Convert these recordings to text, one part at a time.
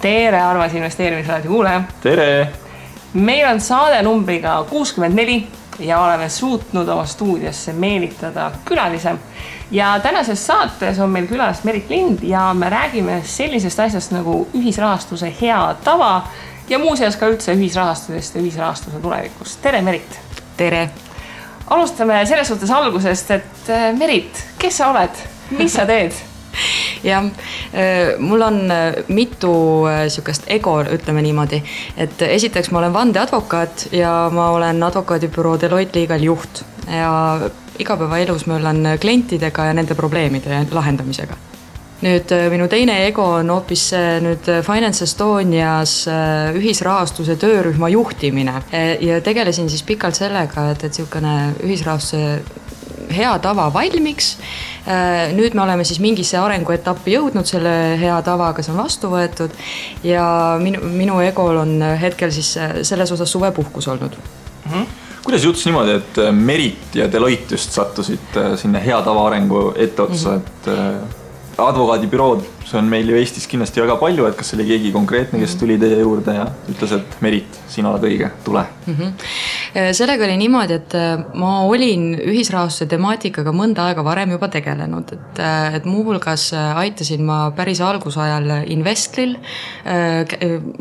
Tere, Armas investeerimisraadi kuulaja. Tere! Meil on saade numbriga 64 ja oleme suutnud oma stuudiosse meelitada külalise. Ja tänases saates on meil külas Merit Lind ja me räägime sellisest asjast nagu ühisrahastuse hea tava ja muuseas ka üldse ühisrahastusest ja ühisrahastuse tulevikust. Tere, Merit! Tere! Alustame selles suhtes algusest, et Merit, kes sa oled? Mis sa teed? Ja mul on mitu sükest ego, ütleme niimoodi, et esiteks ma olen vandeadvokaat ja ma olen advokaadibüroo Deloitte Legal juht ja igapäevaelus ma olen klientidega ja nende probleemide lahendamisega. Nüüd minu teine ego on hoopis nüüd Finance Estonias ühisrahastuse töörühma juhtimine ja tegelesin siis pikalt sellega, et selline ühisrahastuse hea tava valmiks. Nüüd me oleme siis mingisse arenguetappi jõudnud selle hea tavaga, see on vastu võetud ja minu egol on hetkel siis selles osas suvepuhkus olnud. Kuidas juhtus niimoodi, et Merit ja Deloitte just sattusid sinna hea tava arengu etteotsa, et advokaadibürood, see on meil ju Eestis kindlasti väga palju, et kas oli keegi konkreetne, kes tuli teie juurde ja ütles, et Merit, sina oled õige, tule. Sellega oli niimoodi, et ma olin ühisrahastuse temaatikaga mõnda aega varem juba tegelenud, et muuhulgas aitasin ma päris algusajal Investlil,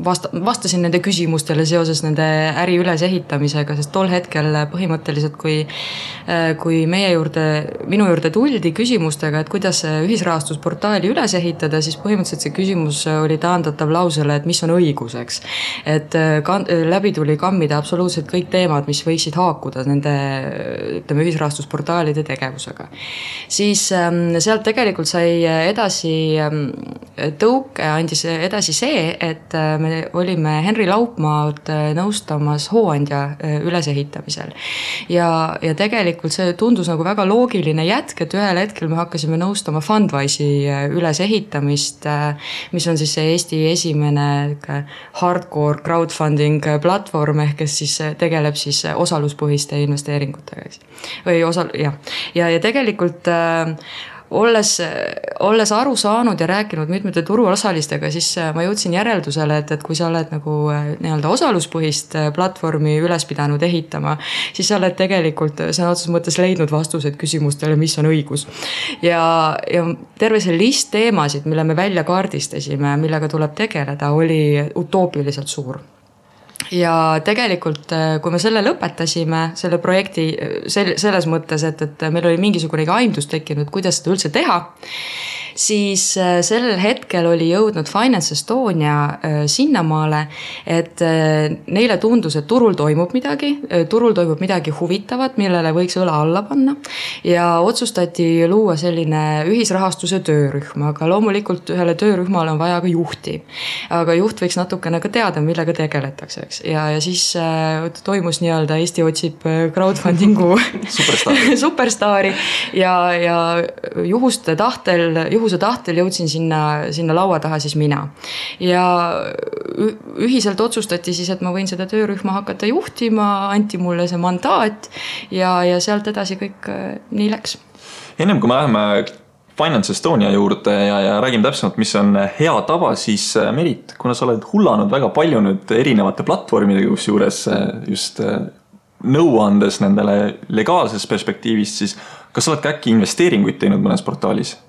vastasin nende küsimustele seoses nende äri ülesehitamisega, sest tol hetkel põhimõtteliselt, kui minu juurde tuldi küsimustega, et kuidas ühisrahastusportaali üles ehitada, siis põhimõtteliselt see küsimus oli taandatav lausele, et mis on õiguseks. Et läbi tuli kammida absoluutselt kõik teemad, mis võiksid haakuda nende ühisrahastusportaalide tegevusega. Siis sealt tegelikult sai edasi tõuke, andis edasi see, et me olime Henri Laupmaad nõustamas hooandja ülesehitamisel. Ja tegelikult see tundus nagu väga loogiline jätk, et ühel hetkel me hakkasime nõustama Fundwise'i ülesehitamist, mis on siis see Eesti esimene hardcore crowdfunding platvorm, kes siis tegeleb siis osaluspõhiste investeeringutega. Ja tegelikult olles aru saanud ja rääkinud mitmete turuosalistega, siis ma jõudsin järeldusele, et kui sa oled nagu nii-öelda osaluspõhist platvormi üles pidanud ehitama, siis sa oled tegelikult sõna otseses mõttes leidnud vastused küsimustele, mis on õigus. Ja terve see list teemasid, mille me välja kaardistasime, millega tuleb tegeleda, oli utoopiliselt suur. Ja tegelikult, kui me selle lõpetasime, selle projekti selles mõttes, et meil oli mingisugunegi aimdus tekkinud, kuidas seda üldse teha, siis sellel hetkel oli jõudnud Finance Estonia sinnamaale, et neile tundus, et turul toimub midagi huvitavat, millele võiks õla alla panna ja otsustati luua selline ühisrahastuse töörühm, aga loomulikult ühele töörühmale on vaja ka juhti. Aga juht võiks natukene ka teada, millega tegeletakse, eks. Ja siis toimus nii-öelda Eesti otsib crowdfundingu superstaari ja juhuse tahtel jõudsin sinna laua taha siis mina. Ja ühiselt otsustati siis, et ma võin seda töörühma hakata juhtima, anti mulle see mandaat ja sealt edasi kõik nii läks. Ennem kui me läheme Finance Estonia juurde ja räägime täpsemalt, mis on hea tava, siis Merit, kuna sa oled hullanud väga palju nüüd erinevate platvormidega, kus juures just nõuandes nendele legaalses perspektiivist, siis kas sa oled ka äkki investeeringuid teinud mõnes portaalis?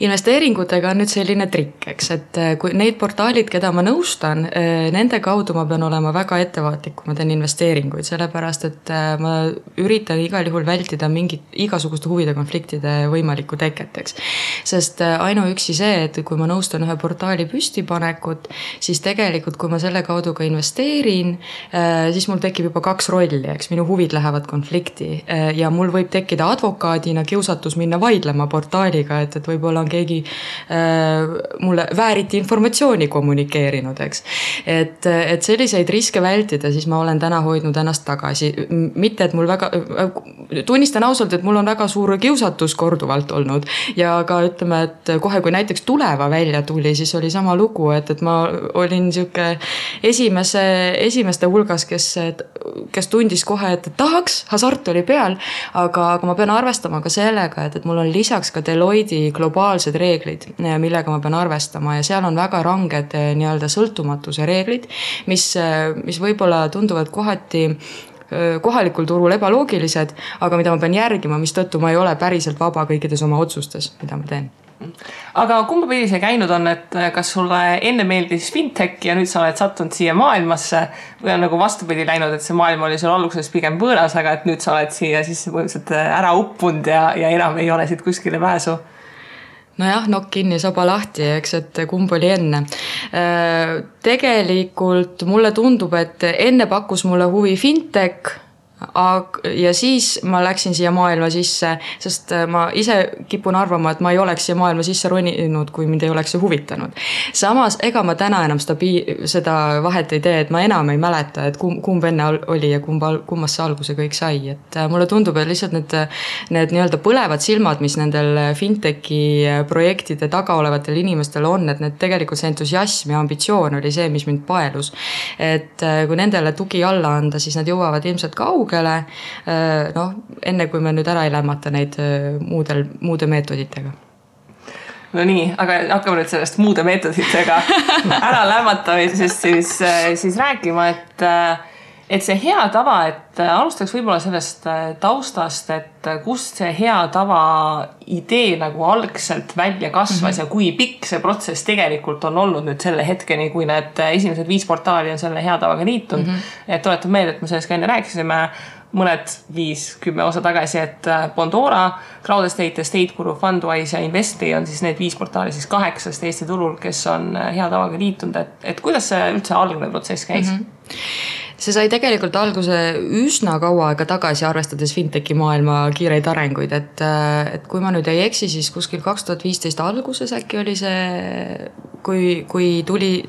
Investeeringutega on nüüd selline trikk, eks, et kui neid portaalid, keda ma nõustan, nende kaudu ma pean olema väga ettevaatlik, kui ma teen investeeringuid, sellepärast, et ma üritan igal juhul vältida igasuguste huvide konfliktide võimalikku teket, eks. Sest ainuüksi see, et kui ma nõustan ühe portaali püstipanekut, siis tegelikult, kui ma selle kaudu ka investeerin, siis mul tekib juba 2 rolli, eks, minu huvid lähevad konflikti ja mul võib tekkida advokaadina kiusatus minna vaidlema portaaliga, et võib-olla on keegi mulle vääriti informatsiooni kommunikeerinud, eks. Et selliseid riske vältida, siis ma olen täna hoidnud ennast tagasi. Mitte, et mul tunnistan ausalt, et mul on väga suur kiusatus korduvalt olnud ja ka ütleme, et kohe kui näiteks Tuleva välja tuli, siis oli sama lugu, et ma olin esimeste hulgas, kes kes tundis kohe, et tahaks, hasart oli peal, aga ma pean arvestama ka sellega, et mul on lisaks ka Deloitte globaalsed reeglid, millega ma pean arvestama ja seal on väga ranged nii-öelda sõltumatuse reeglid, mis võib-olla tunduvad kohati kohalikul turul ebaloogilised, aga mida ma pean järgima, mistõttu ma ei ole päriselt vaba kõikides oma otsustes, mida ma teen. Aga kumba pidi see käinud on, et kas sulle enne meeldis fintech ja nüüd sa oled sattunud siia maailmasse või on nagu vastupidi läinud, et see maailm oli sul alguses pigem võõras, aga et nüüd sa oled siia siis põhimõtteliselt ära uppunud ja enam ei ole siit kuskile pääsu? Nojah, nokk kinni, saba lahti, eks, et kumb oli enne. Tegelikult mulle tundub, et enne pakkus mulle huvi fintech ja siis ma läksin siia maailma sisse, sest ma ise kipun arvama, et ma ei oleks siia maailma sisse roninud, kui mind ei oleks see huvitanud. Samas, ega ma täna enam seda vahet ei tee, et ma enam ei mäleta, et kumb enne oli ja kummast see alguse kõik sai. Et mulle tundub, et lihtsalt need nii-öelda põlevad silmad, mis nendel fintechi projektide taga olevatel inimestel on, et need tegelikult see entusiasm ja ambitsioon oli see, mis mind paelus. Et kui nendele tugi alla anda, siis nad jõuavad ilmselt enne kui me nüüd ära ei lämmata neid muude meetoditega. No nii, aga hakkame nüüd sellest muude meetoditega ära lämmatamisest siis rääkima, et see hea tava, et alustaks võib-olla sellest taustast, et kust see hea tava idee nagu algselt välja kasvas ja kui pikk see protsess tegelikult on olnud nüüd selle hetkeni, kui need esimesed 5 portaali on selle hea tavaga liitunud. Et tuletan meelde, et me sellest ka enne rääkisime mõned 5-10 osa tagasi, et Bondora, Crowd Estate, Estate Guru, Fundwise ja Investi on siis need 5 portaali siis 8 Eesti turul, kes on hea tavaga liitunud, et kuidas see üldse algne protsess käis? See sai tegelikult alguse üsna kaua aega tagasi, arvestades fintechi maailma kiireid arenguid, et kui ma nüüd ei eksi, siis kuskil 2015 alguses äkki oli see, kui tuli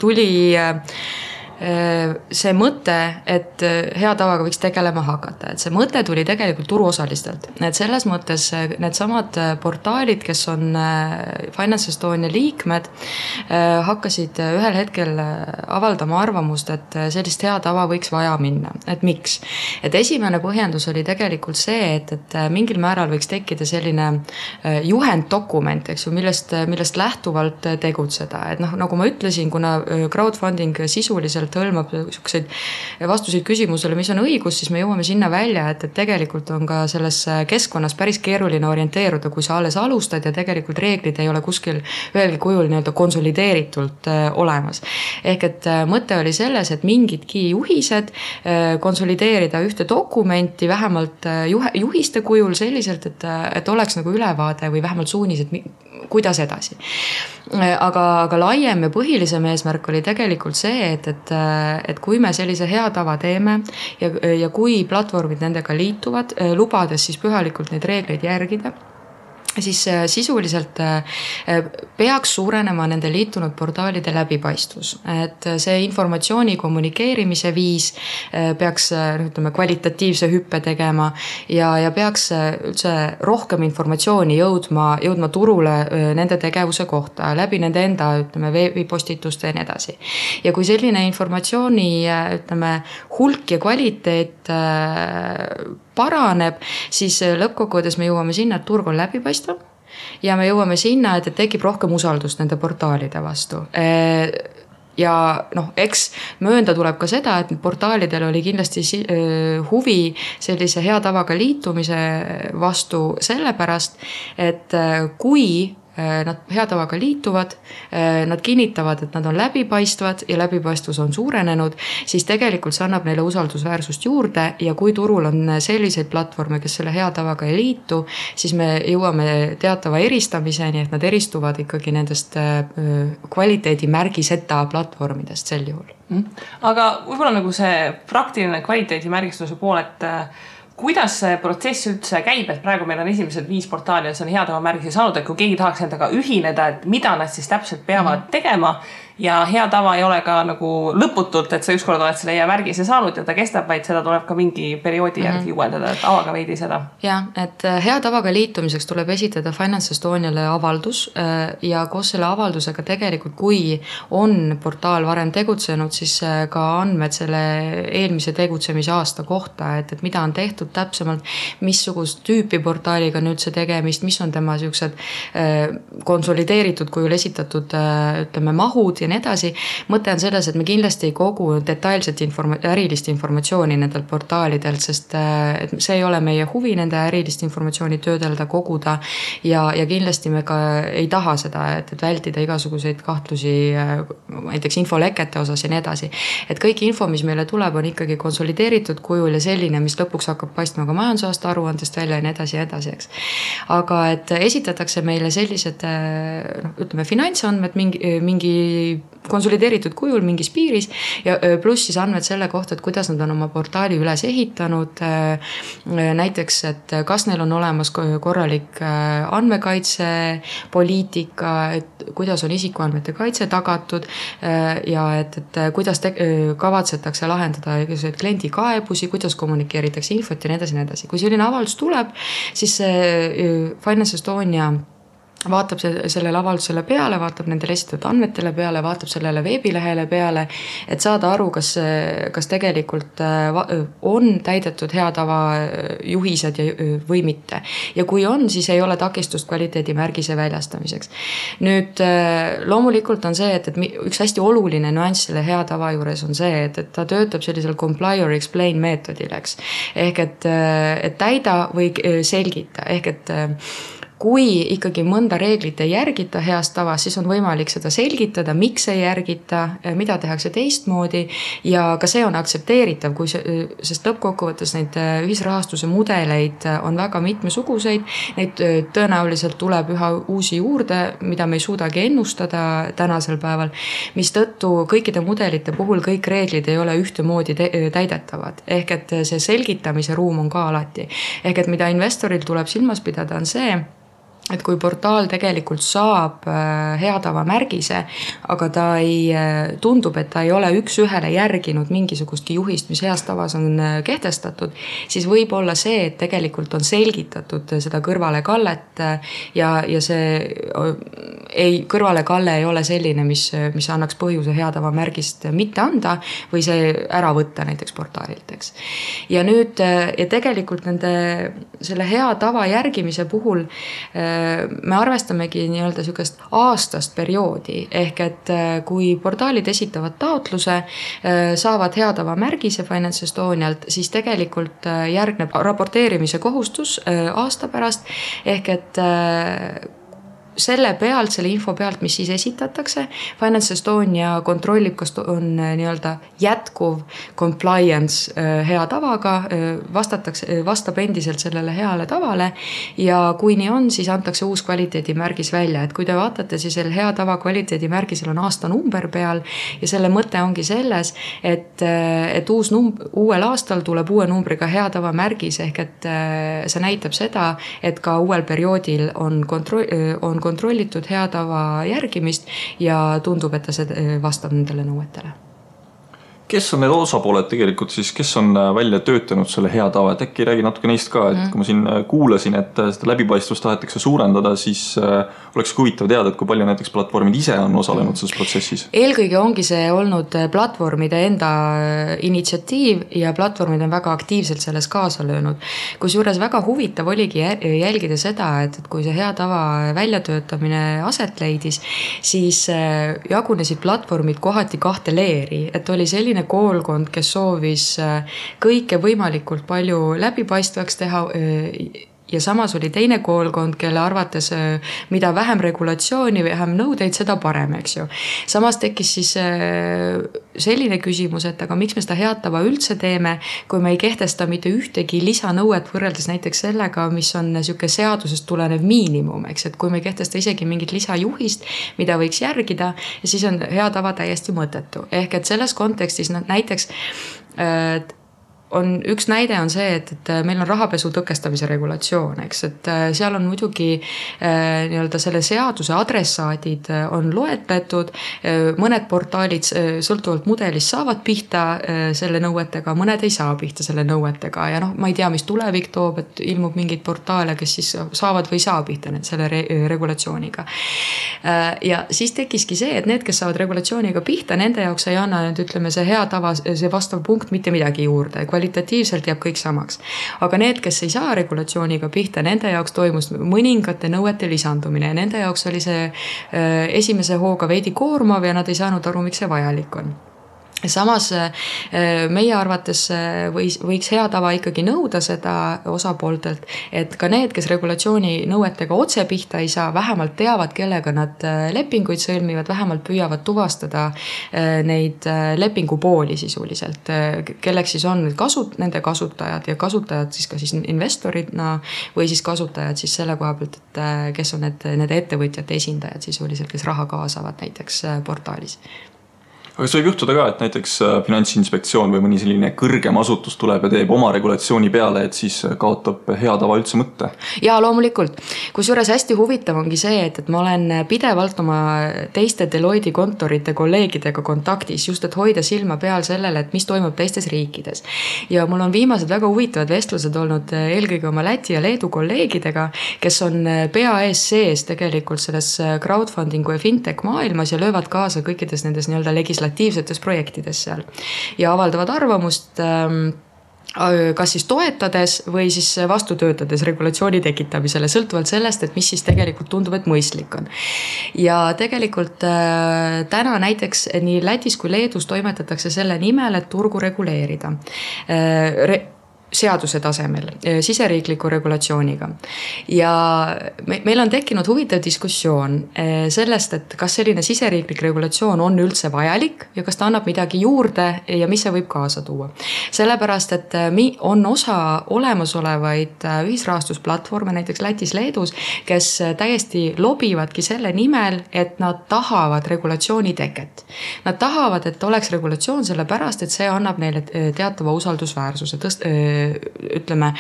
see mõte, et hea tavaga võiks tegelema hakata, et see mõte tuli tegelikult turuosalistelt, et selles mõttes need samad portaalid, kes on Finance Estonia liikmed, hakkasid ühel hetkel avaldama arvamust, et sellist hea tava võiks vaja minna, et miks? Et esimene põhjendus oli tegelikult see, et mingil määral võiks tekkida selline juhenddokument, eks ju, millest lähtuvalt tegutseda, et nagu ma ütlesin, kuna crowdfunding sisuliselt hõlmab vastuseid küsimusele, mis on õigus, siis me jõuame sinna välja, et tegelikult on ka selles keskkonnas päris keeruline orienteeruda, kui sa alles alustad ja tegelikult reeglid ei ole kuskil ühelgi kujul nii-öelda konsolideeritult olemas. Ehk et mõte oli selles, et mingidki juhised konsolideerida ühte dokumenti vähemalt juhiste kujul selliselt, et oleks nagu ülevaade või vähemalt suunised, kuidas edasi. Aga laiem ja põhilisem eesmärk oli tegelikult see, et kui me sellise hea tava teeme ja kui platvormid nendega liituvad, lubades siis pühalikult neid reegleid järgida, siis sisuliselt peaks suurenema nende liitunud portaalide läbipaistvus. Et see informatsiooni kommunikeerimise viis peaks kvalitatiivse hüppe tegema ja peaks üldse rohkem informatsiooni jõudma turule nende tegevuse kohta läbi nende enda veebipostituste ja nii edasi. Ja kui selline informatsiooni hulk ja kvaliteet paraneb, siis lõppkokkuvõttes me jõuame sinna, et turg on läbipaistvam ja me jõuame sinna, et tekib rohkem usaldust nende portaalide vastu. Ja eks möönda tuleb ka seda, et portaalidel oli kindlasti huvi sellise hea tavaga liitumise vastu sellepärast, et kui nad hea tavaga liituvad, nad kinnitavad, et nad on läbipaistvad ja läbipaistvus on suurenenud, siis tegelikult see annab neile usaldusväärsust juurde ja kui turul on selliseid platvorme, kes selle hea tavaga ei liitu, siis me jõuame teatava eristamiseni, et nad eristuvad ikkagi nendest kvaliteedimärgiseta platvormidest sel juhul. Aga võib-olla nagu see praktiline kvaliteedimärgistuse pool, et kuidas see protsess üldse käib, et praegu meil on esimesed 5 portaali ja see on hea tava märgise saanud, et kui keegi tahaks endaga ühineda, et mida nad siis täpselt peavad tegema ja hea tava ei ole ka nagu lõputult, et sa ükskord oled selle märgise saanud ja ta kestab, vaid seda tuleb ka mingi perioodi järgi uuendada, et avaga veidi seda. Ja, et hea tavaga liitumiseks tuleb esitada Finance Estoniale avaldus ja koos selle avaldusega tegelikult, kui on portaal varem tegutsenud, siis ka andmed selle eelmise tegutsemise aasta kohta, et mida on tehtud täpsemalt, missugust tüüpi portaaliga nüüd see tegemist, mis on tema siuksed konsolideeritud kujul esitatud ütleme mahud ja nii edasi. Mõte on selles, et me kindlasti ei kogu detailset ärilist informatsiooni nendelt portaalidelt, sest see ei ole meie huvi nende ärilist informatsiooni töödelda, koguda ja kindlasti me ka ei taha seda, et vältida igasuguseid kahtlusi näiteks infolekete osas ja nii edasi. Et kõik info, mis meile tuleb, on ikkagi konsolideeritud kujul ja selline, mis lõpuks hakkab paistma ka majandusaasta aruandest välja ja nii edasi, eks. Aga et esitatakse meile sellised ütleme finantsandmed mingi konsolideeritud kujul mingis piiris ja pluss siis andmed selle kohta, et kuidas nad on oma portaali üles ehitanud, näiteks, et kas neil on olemas korralik andmekaitse poliitika, et kuidas on isikuandmete kaitse tagatud ja et kuidas kavatsetakse lahendada kliendi kaebusi, kuidas kommunikeeritakse infot ja nii edasi. Kui selline avaldus tuleb, siis Finance Estonia vaatab sellele avaldusele peale, vaatab nendele esitatud andmetele peale, vaatab sellele veebilehele peale, et saada aru, kas tegelikult on täidetud hea tava juhised või mitte. Ja kui on, siis ei ole takistust kvaliteedimärgise väljastamiseks. Nüüd loomulikult on see, et üks hästi oluline nüanss selle hea tava juures on see, et ta töötab sellisel comply or explain meetodil, eks. Ehk et täida või selgita, ehk et kui ikkagi mõnda reeglit ei järgita heast tavast, siis on võimalik seda selgitada, miks ei järgita, mida tehakse teistmoodi ja ka see on aktsepteeritav, sest lõppkokkuvõttes neid ühisrahastuse mudeleid on väga mitmesuguseid, neid tõenäoliselt tuleb üha uusi juurde, mida me ei suudagi ennustada tänasel päeval, mis tõttu kõikide mudelite puhul kõik reeglid ei ole ühtemoodi täidetavad. Ehk et see selgitamise ruum on ka alati. Ehk et mida investoril tuleb silmas pidada on see, et kui portaal tegelikult saab hea tava märgise, aga ta tundub, et ta ei ole üks-ühele järginud mingisugustki juhist, mis heas tavas on kehtestatud, siis võib olla see, et tegelikult on selgitatud seda kõrvalekallet ja see kõrvalekalle ei ole selline, mis annaks põhjuse hea tava märgist mitte anda või see ära võtta näiteks portaalilt, eks. Ja nüüd ja tegelikult selle hea tava järgimise puhul me arvestamegi nii-öelda sükest aastast perioodi, ehk et kui portaalid esitavad taotluse, saavad hea tava märgise Finance Estonialt, siis tegelikult järgneb raporteerimise kohustus aasta pärast, ehk et selle info pealt, mis siis esitatakse, Finance Estonia kontrollib, kas on nii-öelda jätkuv compliance hea tavaga, vastab endiselt sellele heale tavale ja kui nii on, siis antakse uus kvaliteedimärgis välja. Et kui te vaatate, siis hea tava kvaliteedimärgisel on aastanumber peal ja selle mõte ongi selles, et uuel aastal tuleb uue numbriga hea tava märgis, ehk et see näitab seda, et ka uuel perioodil on kontrollitud hea tava järgimist ja tundub, et ta vastab nendele nõuetele. Kes on need osapooled tegelikult siis, kes on välja töötanud selle hea tava, et äkki räägi natuke neist ka, et kui ma siin kuulasin, et seda läbipaistvust tahetakse suurendada, siis oleks huvitav teada, et kui palju näiteks platvormid ise on osalenud selles protsessis. Eelkõige ongi see olnud platvormide enda initsiatiiv ja platvormid on väga aktiivselt selles kaasa löönud. Kusjuures väga huvitav oligi jälgida seda, et kui see hea tava väljatöötamine aset leidis, siis jagunesid platvormid kohati kahte leeri, et oli selline koolkond, kes soovis kõike võimalikult palju läbipaistvaks teha ja samas oli teine koolkond, kelle arvates mida vähem regulatsiooni, vähem nõudeid, seda parem, eks ju. Samas tekkis siis selline küsimus, et aga miks me seda head tava üldse teeme, kui me ei kehtesta mitte ühtegi lisanõuet võrreldes näiteks sellega, mis on niisugune seadusest tulenev miinimum, eks, et kui me ei kehtesta isegi mingit lisajuhist, mida võiks järgida, siis on hea tava täiesti mõttetu. Ehk et selles kontekstis näiteks on üks näide on see, et meil on rahapesu tõkestamise regulatsioon, eks, et seal on muidugi nii-öelda selle seaduse adressaadid on loetletud, mõned portaalid sõltuvalt mudelist saavad pihta selle nõuetega, mõned ei saa pihta selle nõuetega ja noh, ma ei tea, mis tulevik toob, et ilmub mingeid portaale, kes siis saavad või ei saa pihta selle regulatsiooniga. Ja siis tekiski see, et need, kes saavad regulatsiooniga pihta, nende jaoks ei anna nüüd, ütleme, see hea tava, see vastav punkt mitte midagi juurde, kvalitatiivselt jääb kõik samaks. Aga need, kes ei saa regulatsiooniga pihta, nende jaoks toimus mõningate nõuete lisandumine ja nende jaoks oli see esimese hooga veidi koormav ja nad ei saanud aru, miks see vajalik on. Samas meie arvates võiks hea tava ikkagi nõuda seda osapooltelt, et ka need, kes regulatsiooni nõuetega otse pihta ei saa, vähemalt teavad, kellega nad lepinguid sõlmivad, vähemalt püüavad tuvastada neid lepingupooli sisuliselt, kelleks siis on nende kasutajad ja kasutajad siis ka siis investoridna või siis kasutajad siis selle koha pealt, et kes on need ettevõtjate esindajad sisuliselt, kes raha kaasavad näiteks portaalis. Aga see võib juhtuda ka, et näiteks Finantsinspektsioon või mõni selline kõrgem asutus tuleb ja teeb oma regulatsiooni peale, et siis kaotab hea tava üldse mõtte. Ja loomulikult. Kusjuures hästi huvitav ongi see, et ma olen pidevalt oma teiste Deloitte kontorite kolleegidega kontaktis, just et hoida silma peal sellele, et mis toimub teistes riikides. Ja mul on viimased väga huvitavad vestlused olnud eelkõige oma Läti ja Leedu kolleegidega, kes on pea ees sees tegelikult selles crowdfundingu ja fintech maailmas ja löövad kaasa kõikides nendes nii-öelda legislatiivsetes projektides seal ja avaldavad arvamust kas siis toetades või siis vastu töötades regulatsiooni tekitamisele, sõltuvalt sellest, et mis siis tegelikult tundub, et mõistlik on. Ja tegelikult täna näiteks nii Lätis kui Leedus toimetatakse selle nimel, et turgu reguleerida seaduse tasemel, siseriikliku regulatsiooniga. Ja meil on tekkinud huvitav diskussioon sellest, et kas selline siseriiklik regulatsioon on üldse vajalik ja kas ta annab midagi juurde ja mis see võib kaasa tuua. Sellepärast, et on osa olemasolevaid ühisrahastusplatvorme, näiteks Lätis, Leedus, kes täiesti lobivadki selle nimel, et nad tahavad regulatsiooni teket. Nad tahavad, et oleks regulatsioon sellepärast, et see annab neile teatava usaldusväärsuse ütleme,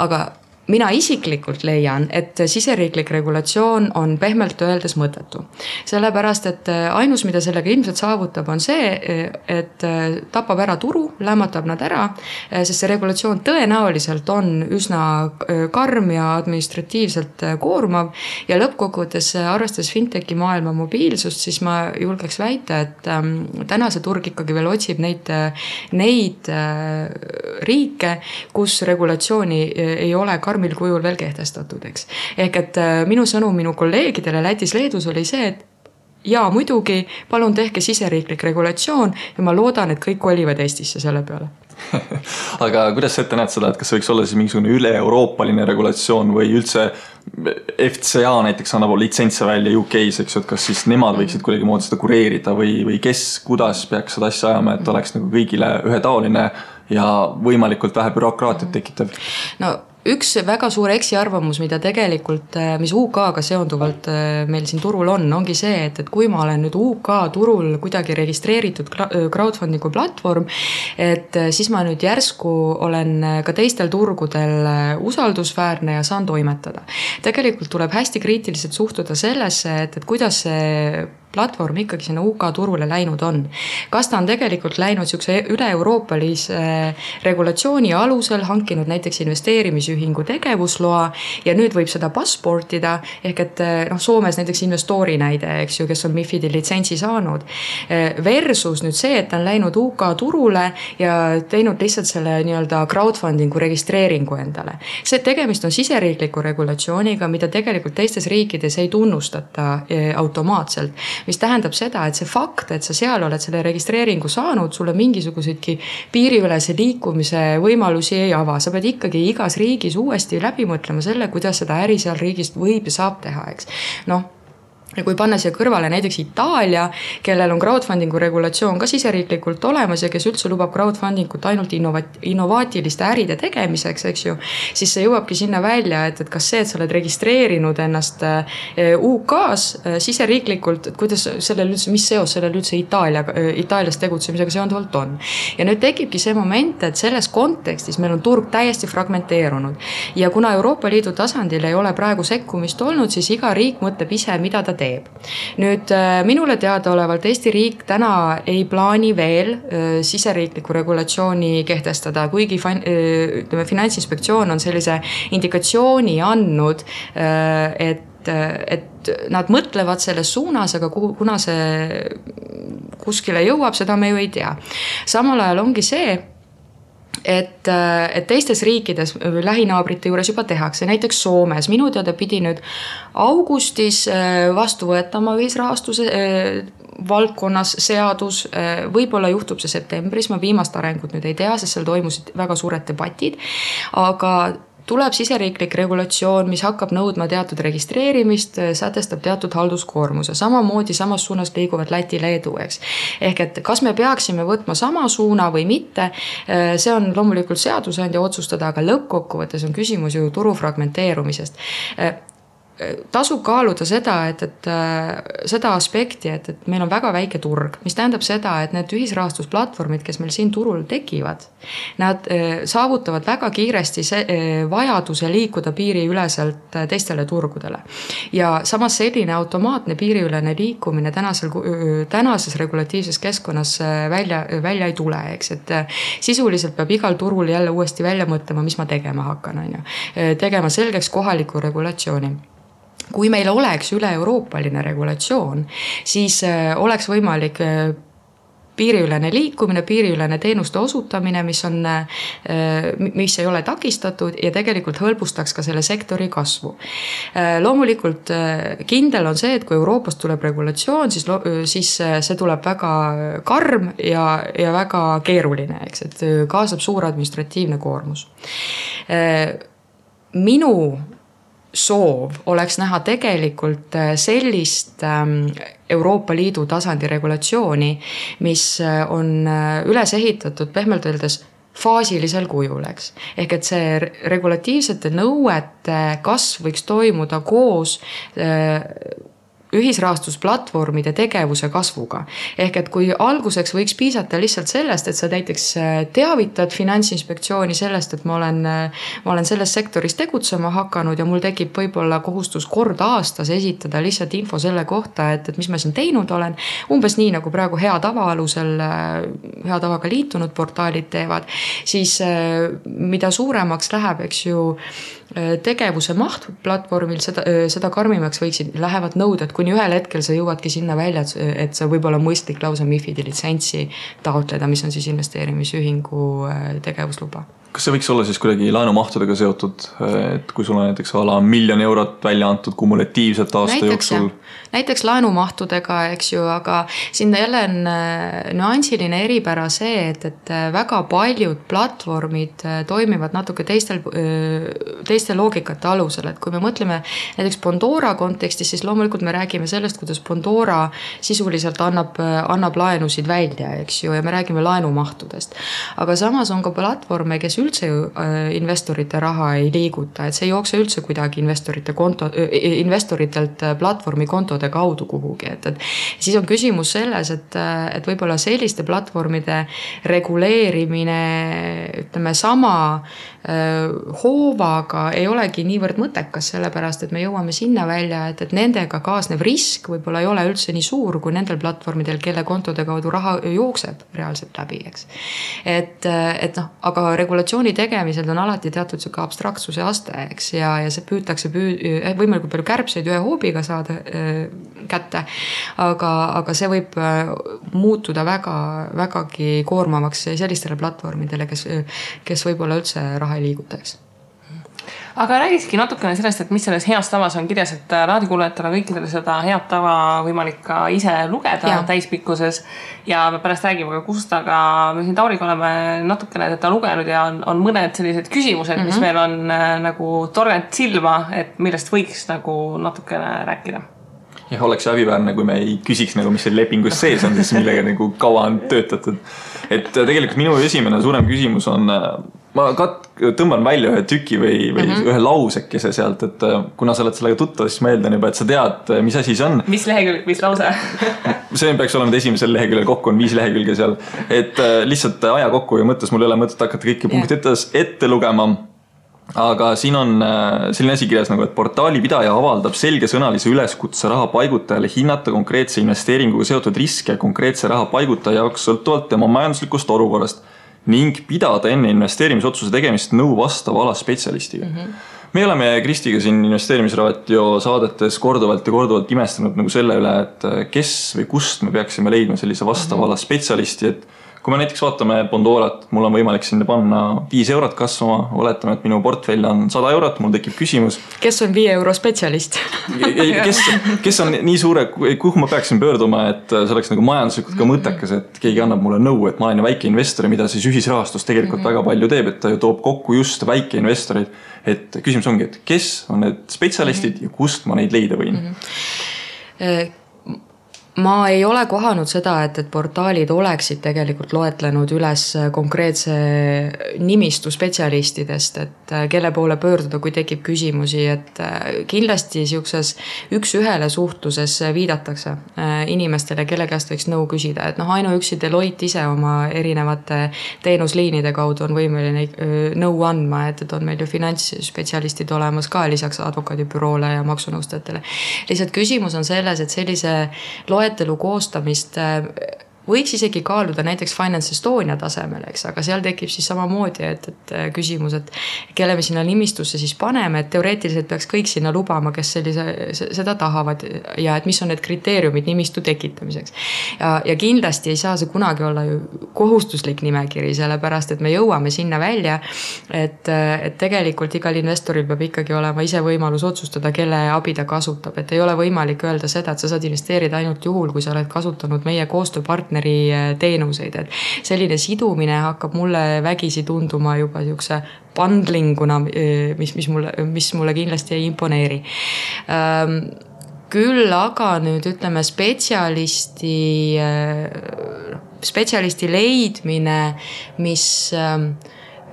aga mina isiklikult leian, et siseriiklik regulatsioon on pehmelt öeldes mõttetu. Sellepärast, et ainus, mida sellega ilmselt saavutab, on see, et tapab ära turu, lämmatab nad ära, sest see regulatsioon tõenäoliselt on üsna karm ja administratiivselt koormav ja lõppkokkuvõttes arvestades fintechi maailma mobiilsust, siis ma julgeks väita, et täna see turg ikkagi veel otsib neid riike, kus regulatsiooni ei ole karmil kujul veel kehtestatud, eks. Ehk et minu sõnum minu kolleegidele Lätis, Leedus oli see, et jaa, muidugi, palun tehke siseriiklik regulatsioon ja ma loodan, et kõik kolivad Eestisse selle peale. Aga kuidas sa ette näed seda, et kas võiks olla siis mingisugune üle-euroopaline regulatsioon või üldse FCA näiteks annab litsentse välja UK-s, eks, et kas siis nemad võiksid kuidagi moodi seda kureerida või kes, kuidas peaks seda asja ajama, et oleks nagu kõigile ühetaoline ja võimalikult vähe bürokraatiat tekitav? No üks väga suur eksiarvamus, mida tegelikult, mis UK-ga seonduvalt meil siin turul ongi see, et kui ma olen nüüd UK turul kuidagi registreeritud crowdfundingu platvorm, et siis ma nüüd järsku olen ka teistel turgudel usaldusväärne ja saan toimetada. Tegelikult tuleb hästi kriitiliselt suhtuda sellesse, et kuidas see platvorm ikkagi sinna UK turule läinud on. Kas ta on tegelikult läinud siukse üle-euroopalise regulatsiooni alusel, hankinud näiteks investeerimisühingu tegevusloa ja nüüd võib seda passportida, ehk et Soomes näiteks investori näide, eks ju, kes on MiFID-i litsentsi saanud, versus nüüd see, et ta on läinud UK turule ja teinud lihtsalt selle nii-öelda crowdfundingu registreeringu endale. See tegemist on siseriikliku regulatsiooniga, mida tegelikult teistes riikides ei tunnustata automaatselt, mis tähendab seda, et see fakt, et sa seal oled selle registreeringu saanud, sulle mingisuguseidki piiriülese liikumise võimalusi ei ava. Sa pead ikkagi igas riigis uuesti läbi mõtlema selle, kuidas seda äri seal riigist võib ja saab teha, eks. ja kui panna siia kõrvale näiteks Itaalia, kellel on crowdfundingu regulatsioon ka siseriiklikult olemas ja kes üldse lubab crowdfundingut ainult innovaatiliste äride tegemiseks, eks ju, siis see jõuabki sinna välja, et kas see, et sa oled registreerinud ennast UK-s siseriiklikult, et kuidas sellel üldse, mis seos sellel üldse Itaalias tegutsemisega seonduvalt on. Ja nüüd tekibki see moment, et selles kontekstis meil on turg täiesti fragmenteerunud ja kuna Euroopa Liidu tasandil ei ole praegu sekkumist olnud, siis iga riik mõtleb ise, mida ta teeb. Nüüd minule teadaolevalt Eesti riik täna ei plaani veel siseriikliku regulatsiooni kehtestada, kuigi Finantsinspektsioon on sellise indikatsiooni andnud, et nad mõtlevad selles suunas, aga kuna see kuskile jõuab, seda me ju ei tea. Samal ajal ongi see, et teistes riikides lähinaabrite juures juba tehakse, näiteks Soomes. Minu teada pidi nüüd augustis vastu võetama ühisrahastuse valdkonnas seadus, võib-olla juhtub see septembris, ma viimast arengut nüüd ei tea, sest seal toimusid väga suured debatid, aga tuleb siseriiklik regulatsioon, mis hakkab nõudma teatud registreerimist, sätestab teatud halduskoormuse. Samamoodi samas suunas liiguvad Läti, Leedu, eks. Ehk et kas me peaksime võtma sama suuna või mitte, see on loomulikult seadusandja otsustada, aga lõppkokkuvõttes on küsimus ju turu fragmenteerumisest. Tasub kaaluda seda, et seda aspekti, et meil on väga väike turg, mis tähendab seda, et need ühisrahastusplatvormid, kes meil siin turul tekivad, nad saavutavad väga kiiresti vajaduse liikuda piiriüleselt teistele turgudele. Ja samas selline automaatne piiriülene liikumine tänases regulatiivses keskkonnas välja ei tule, eks, et sisuliselt peab igal turul jälle uuesti välja mõtlema, mis ma tegema hakkan, tegema selgeks kohaliku regulatsiooni. Kui meil oleks üle-euroopaline regulatsioon, siis oleks võimalik piiriülene liikumine, piiriülene teenuste osutamine, mis ei ole takistatud ja tegelikult hõlbustaks ka selle sektori kasvu. Loomulikult kindel on see, et kui Euroopast tuleb regulatsioon, siis see tuleb väga karm ja väga keeruline, eks, et kaasab suur administratiivne koormus. Minu soov oleks näha tegelikult sellist Euroopa Liidu tasandi regulatsiooni, mis on üles ehitatud pehmelt öeldes faasilisel kujul, eks. Ehk et see regulatiivsete nõuete kasv võiks toimuda koos ühisrahastusplatvormide tegevuse kasvuga. Ehk et kui alguseks võiks piisata lihtsalt sellest, et sa näiteks teavitad Finantsinspektsiooni sellest, et ma olen selles sektoris tegutsema hakanud ja mul tekib võib-olla kohustus kord aastas esitada lihtsalt info selle kohta, et mis ma siin teinud olen. Umbes nii, nagu praegu hea tava alusel, hea tavaga liitunud portaalid teevad, siis mida suuremaks läheb, eks ju, tegevuse maht platvormil, seda karmimaks lähevad nõuded, kuni ühel hetkel sa jõuadki sinna välja, et sa võib-olla mõistlik lausa MiFID-i litsentsi taotleda, mis on siis investeerimisühingu tegevusluba. Kas see võiks olla siis kuidagi laenumahtudega seotud, et kui sul on näiteks ala 1 miljon eurot välja antud kumulatiivselt aasta jooksul? Näiteks laenumahtudega, eks ju, aga sinna jälle on nüansiline eripära see, et väga paljud platvormid toimivad natuke teiste loogikate alusel, et kui me mõtleme näiteks Pandora kontekstis, siis loomulikult me räägime sellest, kuidas Pandora sisuliselt annab laenusid välja, eks ju, ja me räägime laenumahtudest. Aga samas on ka platvorme, kes üldse investorite raha ei liiguta, et see ei jookse üldse kuidagi investoritelt platvormi kontode kaudu kuhugi, et siis on küsimus selles, et võib-olla selliste platvormide reguleerimine, ütleme, sama hoovaga ei olegi niivõrd mõttekas, sellepärast, et me jõuame sinna välja, et nendega kaasnev risk võib-olla ei ole üldse nii suur kui nendel platvormidel, kelle kontode kaudu raha jookseb reaalselt läbi, eks. Et aga regulatsiooni tegemisel on alati teatud siuke abstraktsuse aste, eks, ja see püütakse võimalikult palju kärbseid ühe hoobiga saada kätte, aga see võib muutuda vägagi koormavaks sellistele platvormidele, kes võib-olla üldse raha ei liigutaks. Aga räägikski natukene sellest, et mis selles heas tavas on kirjas, et raadikuulajatele kõikidele seda head tava võimalik ka ise lugeda täispikkuses ja me pärast räägime ka kust, aga me siin Tauriga oleme natukene teda lugenud ja on mõned sellised küsimused, mis meil on nagu torganud silma, et millest võiks nagu natukene rääkida. Ja oleks häbiväärne, kui me ei küsiks nagu, mis see lepingus sees on, siis millega nagu kaua on töötatud. Et tegelikult minu esimene suurem küsimus on, ma tõmban välja ühe tüki või ühe lausekese sealt, et kuna sa oled sellega tuttav, siis ma eeldan juba, et sa tead, mis asi see on. Mis lehekülg, mis lause? See peaks olema esimesel leheküljel, kokku on 5 lehekülge seal. Et lihtsalt aja kokku ja mõttes mul ei ole mõtet hakata kõiki punkti ette lugema. Aga siin on selline asi kirjas nagu, et portaali pidaja avaldab selgesõnalise üleskutse raha paigutajale hinnata konkreetse investeeringuga seotud riske konkreetse raha paigutaja jaoks sõltuvalt tema majanduslikust olukorrast ning pidada enne investeerimisotsuse tegemist nõu vastava ala spetsialistiga. Me oleme Kristiga siin investeerimisraadio saadetes korduvalt imestanud nagu selle üle, et kes või kust me peaksime leidma sellise vastava ala spetsialisti, et kui me näiteks vaatame Bondorat, mul on võimalik sinna panna 5 eurot kasvama, oletame, et minu portfell on 100 eurot, mul tekib küsimus. Kes on 5 euro spetsialist? Kes on nii suure, kuhu ma peaksin pöörduma, et see oleks nagu majanduslikult ka mõttekas, et keegi annab mulle nõu, et ma olen väike investor, mida siis ühisrahastus tegelikult väga palju teeb, et ta ju toob kokku just väike investorid. Et küsimus ongi, et kes on need spetsialistid ja kust ma neid leida võin? Ma ei ole kohanud seda, et portaalid oleksid tegelikult loetlenud üles konkreetse nimistu spetsialistidest, et kelle poole pöörduda, kui tekib küsimusi, et kindlasti siukses üks-ühele suhtluses viidatakse inimestele, kelle käest võiks nõu küsida, et ainuüksi Deloitte ise oma erinevate teenusliinide kaudu on võimeline nõu andma, et on meil ju finantsspetsialistid olemas ka lisaks advokaadibüroole ja maksunõustajatele. Lihtsalt küsimus on selles, et sellise loetelu koostamist võiks isegi kaaluda näiteks Finance Estonia tasemel, eks, aga seal tekib siis samamoodi, et küsimus, et kelle me sinna nimistusse siis paneme, et teoreetiliselt peaks kõik sinna lubama, kes seda tahavad ja et mis on need kriteeriumid nimistu tekitamiseks. Ja kindlasti ei saa see kunagi olla ju kohustuslik nimekiri, sellepärast, et me jõuame sinna välja, et tegelikult igal investoril peab ikkagi olema ise võimalus otsustada, kelle abi ta kasutab, et ei ole võimalik öelda seda, et sa saad investeerida ainult juhul, kui sa oled kasutanud meie koostööpartneri teenuseid, et selline sidumine hakkab mulle vägisi tunduma juba siukse bundlinguna, mis mulle kindlasti ei imponeeri. Küll aga nüüd ütleme spetsialisti leidmine, mis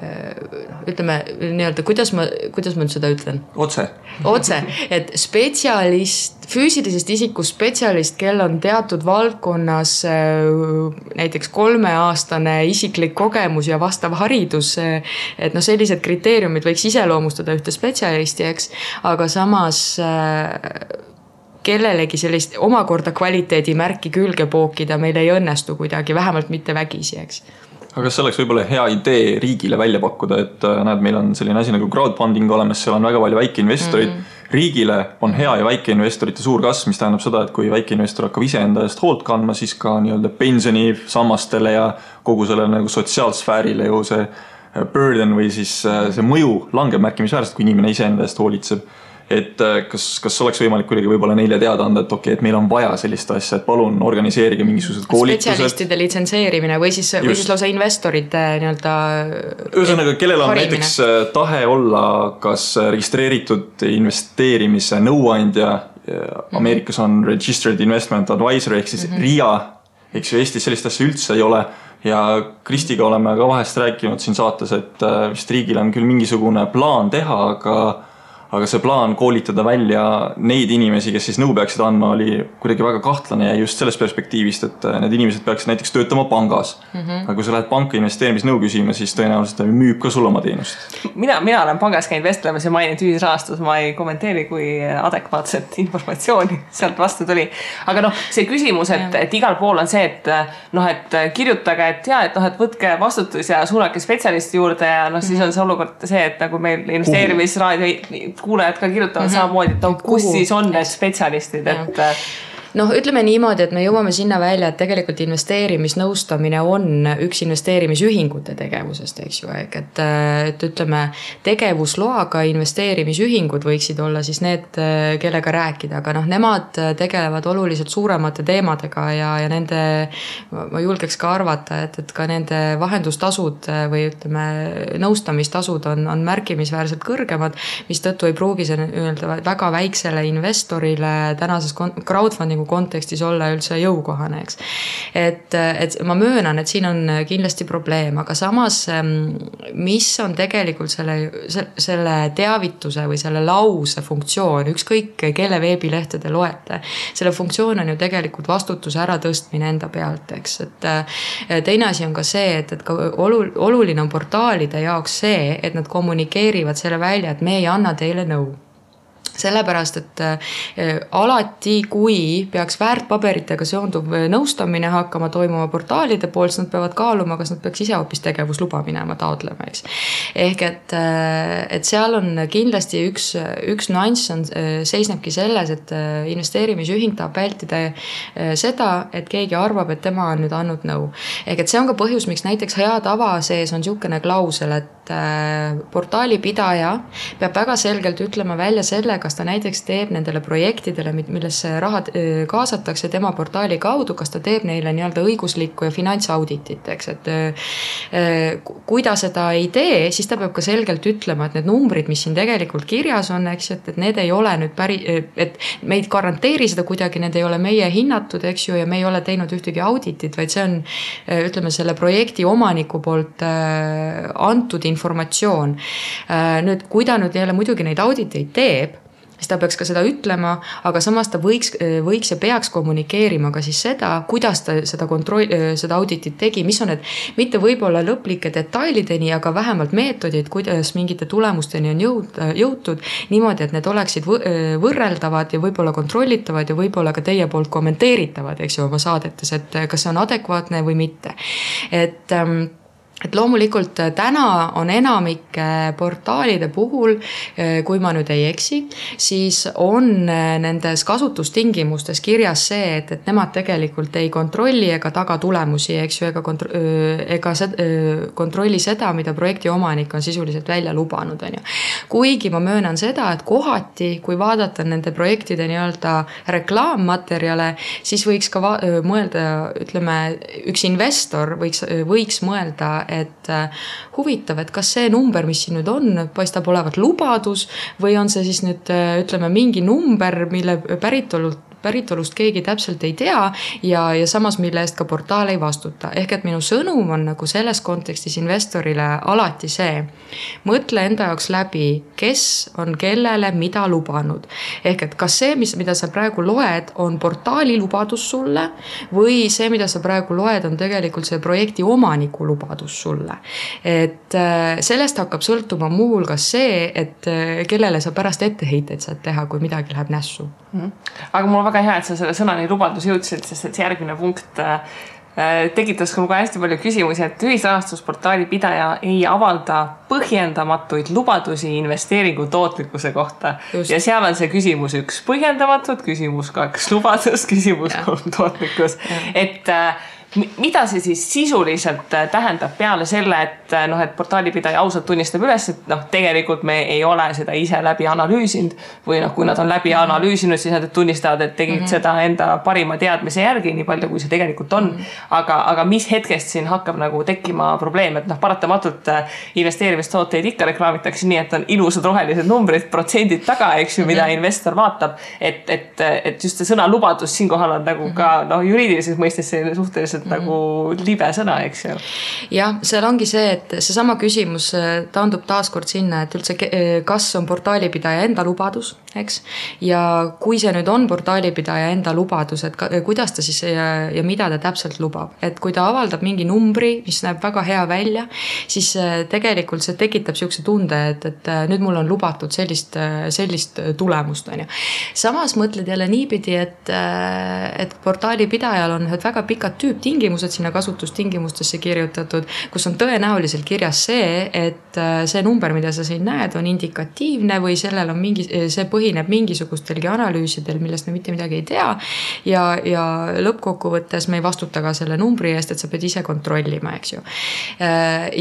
ütleme nii-öelda, kuidas ma nüüd seda ütlen? Otse, et füüsilisest isikust spetsialist, kel on teatud valdkonnas näiteks 3-aastane isiklik kogemus ja vastav haridus, et sellised kriteeriumid võiks iseloomustada ühte spetsialisti, eks, aga samas kellelegi sellist omakorda kvaliteedimärki külge pookida meil ei õnnestu kuidagi, vähemalt mitte vägisi, eks. Aga kas see oleks võib-olla hea idee riigile välja pakkuda, et näed, meil on selline asi nagu crowdfunding olemas, seal on väga palju väikeinvestorid. Riigile on hea ja väikeinvestorite suur kasv, mis tähendab seda, et kui väikeinvestor hakkab ise enda eest hoolt kandma, siis ka nii-öelda pensioni sammastele ja kogu selle nagu sotsiaalsfäärile ju see burden või siis see mõju langeb märkimisväärselt, kui inimene ise enda eest hoolitseb. Et kas oleks võimalik kuidagi võib-olla neile teada anda, et okei, et meil on vaja sellist asja, et palun organiseerige mingisugused koolitused. Spetsialistide litsenseerimine või siis lausa investorite nii-öelda ühesõnaga, kellel on näiteks tahe olla kas registreeritud investeerimise nõuandja, Ameerikas on Registered Investment Advisor ehk siis RIA, eks ju Eestis sellist asja üldse ei ole ja Kristiga oleme ka vahest rääkinud siin saates, et vist riigil on küll mingisugune plaan teha, aga see plaan koolitada välja neid inimesi, kes siis nõu peaksid andma, oli kuidagi väga kahtlane ja just sellest perspektiivist, et need inimesed peaksid näiteks töötama pangas. Aga kui sa lähed panka investeerimisnõu küsima, siis tõenäoliselt müüb ka sul oma teenust. Mina olen pangas käinud vestlemas ja maininud ühisrahastus, ma ei kommenteeri, kui adekvaatset informatsiooni sealt vastu tuli. Aga see küsimus, et igal pool on see, et kirjutage, et võtke vastutus ja suunake spetsialisti juurde ja siis on see olukord see, et nagu meil investeerimisraadio kuulajad ka kirjutavad samamoodi, et kus siis on need spetsialistid, et noh, ütleme niimoodi, et me jõuame sinna välja, et tegelikult investeerimisnõustamine on üks investeerimisühingute tegevusest, eks ju, et ütleme, tegevusloaga investeerimisühingud võiksid olla siis need, kellega rääkida, aga noh, nemad tegelevad oluliselt suuremate teemadega ja nende, ma julgeks ka arvata, et ka nende vahendustasud või ütleme, nõustamistasud on märkimisväärselt kõrgemad, mis tõttu ei pruugi see öelda väga väiksele investorile tänases crowdfundingu kontekstis olla üldse jõukohane, eks. Et ma möönan, et siin on kindlasti probleem, aga samas, mis on tegelikult selle teavituse või selle lause funktsioon, ükskõik kelle veebilehtede loete, selle funktsioon on ju tegelikult vastutuse äratõstmine enda pealt, eks. Et teine asi on ka see, et ka oluline on portaalide jaoks see, et nad kommunikeerivad selle välja, et me ei anna teile nõu. Sellepärast, et alati, kui peaks väärtpaberitega seonduv nõustamine hakkama toimuma portaalide poolt, siis nad peavad kaaluma, kas nad peaks ise hoopis tegevusluba minema taotlema, eks. Ehk et seal on kindlasti üks nüanss seisnebki selles, et investeerimisühing tahab vältida seda, et keegi arvab, et tema on nüüd andnud nõu. Ehk et see on ka põhjus, miks näiteks hea tava sees on niisugune klausel, et portaali pidaja peab väga selgelt ütlema välja selle, kas ta näiteks teeb nendele projektidele, millesse raha kaasatakse tema portaali kaudu, kas ta teeb neile nii-öelda õiguslikku ja finantsauditit, eks, et kui ta seda ei tee, siis ta peab ka selgelt ütlema, et need numbrid, mis siin tegelikult kirjas on, eks, et need ei ole nüüd et me ei garanteeri seda kuidagi, need ei ole meie hinnatud, eks ju, ja me ei ole teinud ühtegi auditit, vaid see on, ütleme, selle projekti omaniku poolt antud informatsioon. Nüüd, kui ta nüüd jälle muidugi neid auditeid teeb, siis ta peaks ka seda ütlema, aga samas ta võiks ja peaks kommunikeerima ka siis seda, kuidas ta seda auditit tegi, mis on need mitte võib-olla lõplike detailideni, aga vähemalt meetodid, kuidas mingite tulemusteni on jõutud niimoodi, et need oleksid võrreldavad ja võib-olla kontrollitavad ja võib-olla ka teie poolt kommenteeritavad, eks ju, oma saadetes, et kas see on adekvaatne või mitte. Et loomulikult täna on enamike portaalide puhul, kui ma nüüd ei eksi, siis on nendes kasutustingimustes kirjas see, et nemad tegelikult ei kontrolli ega taga tulemusi, eks ju, ega kontrolli seda, mida projekti omanik on sisuliselt välja lubanud, on ju. Kuigi ma möönan seda, et kohati, kui vaadata nende projektide nii-öelda reklaammaterjale, siis võiks ka mõelda, ütleme, üks investor võiks mõelda, et huvitav, et kas see number, mis siin nüüd on, paistab olevat lubadus või on see siis nüüd, ütleme, mingi number, mille päritolust keegi täpselt ei tea ja samas mille eest ka portaal ei vastuta. Ehk et minu sõnum on nagu selles kontekstis investorile alati see, mõtle enda jaoks läbi, kes on kellele mida lubanud. Ehk et kas see, mida sa praegu loed, on portaali lubadus sulle või see, mida sa praegu loed, on tegelikult see projekti omaniku lubadus sulle. Et sellest hakkab sõltuma muu hulgas see, et kellele sa pärast etteheiteid saad teha, kui midagi läheb nässu. Aga mul on väga hea, et sa selle sõnani lubadus jõudsid, sest et see järgmine punkt tekitas ka hästi palju küsimusi, et ühisrahastusportaali pidaja ei avalda põhjendamatuid lubadusi investeeringu tootlikkuse kohta. Just. Ja seal on see küsimus 1 põhjendamatud, küsimus 2 lubadus, küsimus 3 tootlikkus. Et mida see siis sisuliselt tähendab peale selle, et portaalipidaja ausalt tunnistab üles, et tegelikult me ei ole seda ise läbi analüüsinud või kui nad on läbi analüüsinud, siis nad tunnistavad, et tegid seda enda parima teadmise järgi, nii palju kui see tegelikult on. Aga mis hetkest siin hakkab tekkima probleem, et paratamatult investeerimistooteid ikka reklaamitakse nii, et on ilusad rohelised numbrid, protsendid taga, eks ju, mida investor vaatab, et just see sõna lubadus siinkohal on ka juriidilises mõistes suhteliselt nagu libe sõna, eks ju. Jah, seal ongi see, et see sama küsimus taandub taaskord sinna, et üldse kas on portaalipidaja enda lubadus, eks? Ja kui see nüüd on portaalipidaja enda lubadus, et kuidas ta siis ja mida ta täpselt lubab. Et kui ta avaldab mingi numbri, mis näeb väga hea välja, siis tegelikult see tekitab siukse tunde, et nüüd mul on lubatud sellist tulemust, on ju. Samas mõtled jälle niipidi, et portaalipidajal on väga pikad tüüptingimused, tingimused sinna kasutustingimustesse kirjutatud, kus on tõenäoliselt kirjas see, et see number, mida sa siin näed, on indikatiivne või sellel on see põhineb mingisugustelgi analüüsidel, millest me mitte midagi ei tea ja lõppkokkuvõttes me ei vastuta ka selle numbri eest, et sa pead ise kontrollima, eks ju.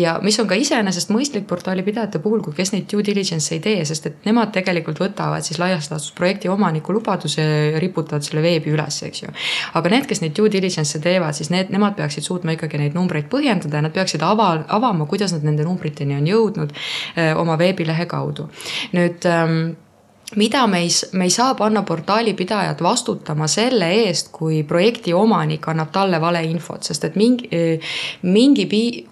Ja mis on ka iseenesest mõistlik portaalipidajate puhul, kui kes neid due diligence ei tee, sest et nemad tegelikult võtavad siis laias laastus projekti omaniku lubaduse ja riputavad selle veebi üles, eks ju. Aga need, kes neid due diligence teevad, siis nemad peaksid suutma ikkagi neid numbreid põhjendada ja nad peaksid avama, kuidas nad nende numbriteni on jõudnud oma veebilehe kaudu. Nüüd mida me ei saa panna portaalipidajad vastutama selle eest, kui projekti omanik annab talle vale infot, sest et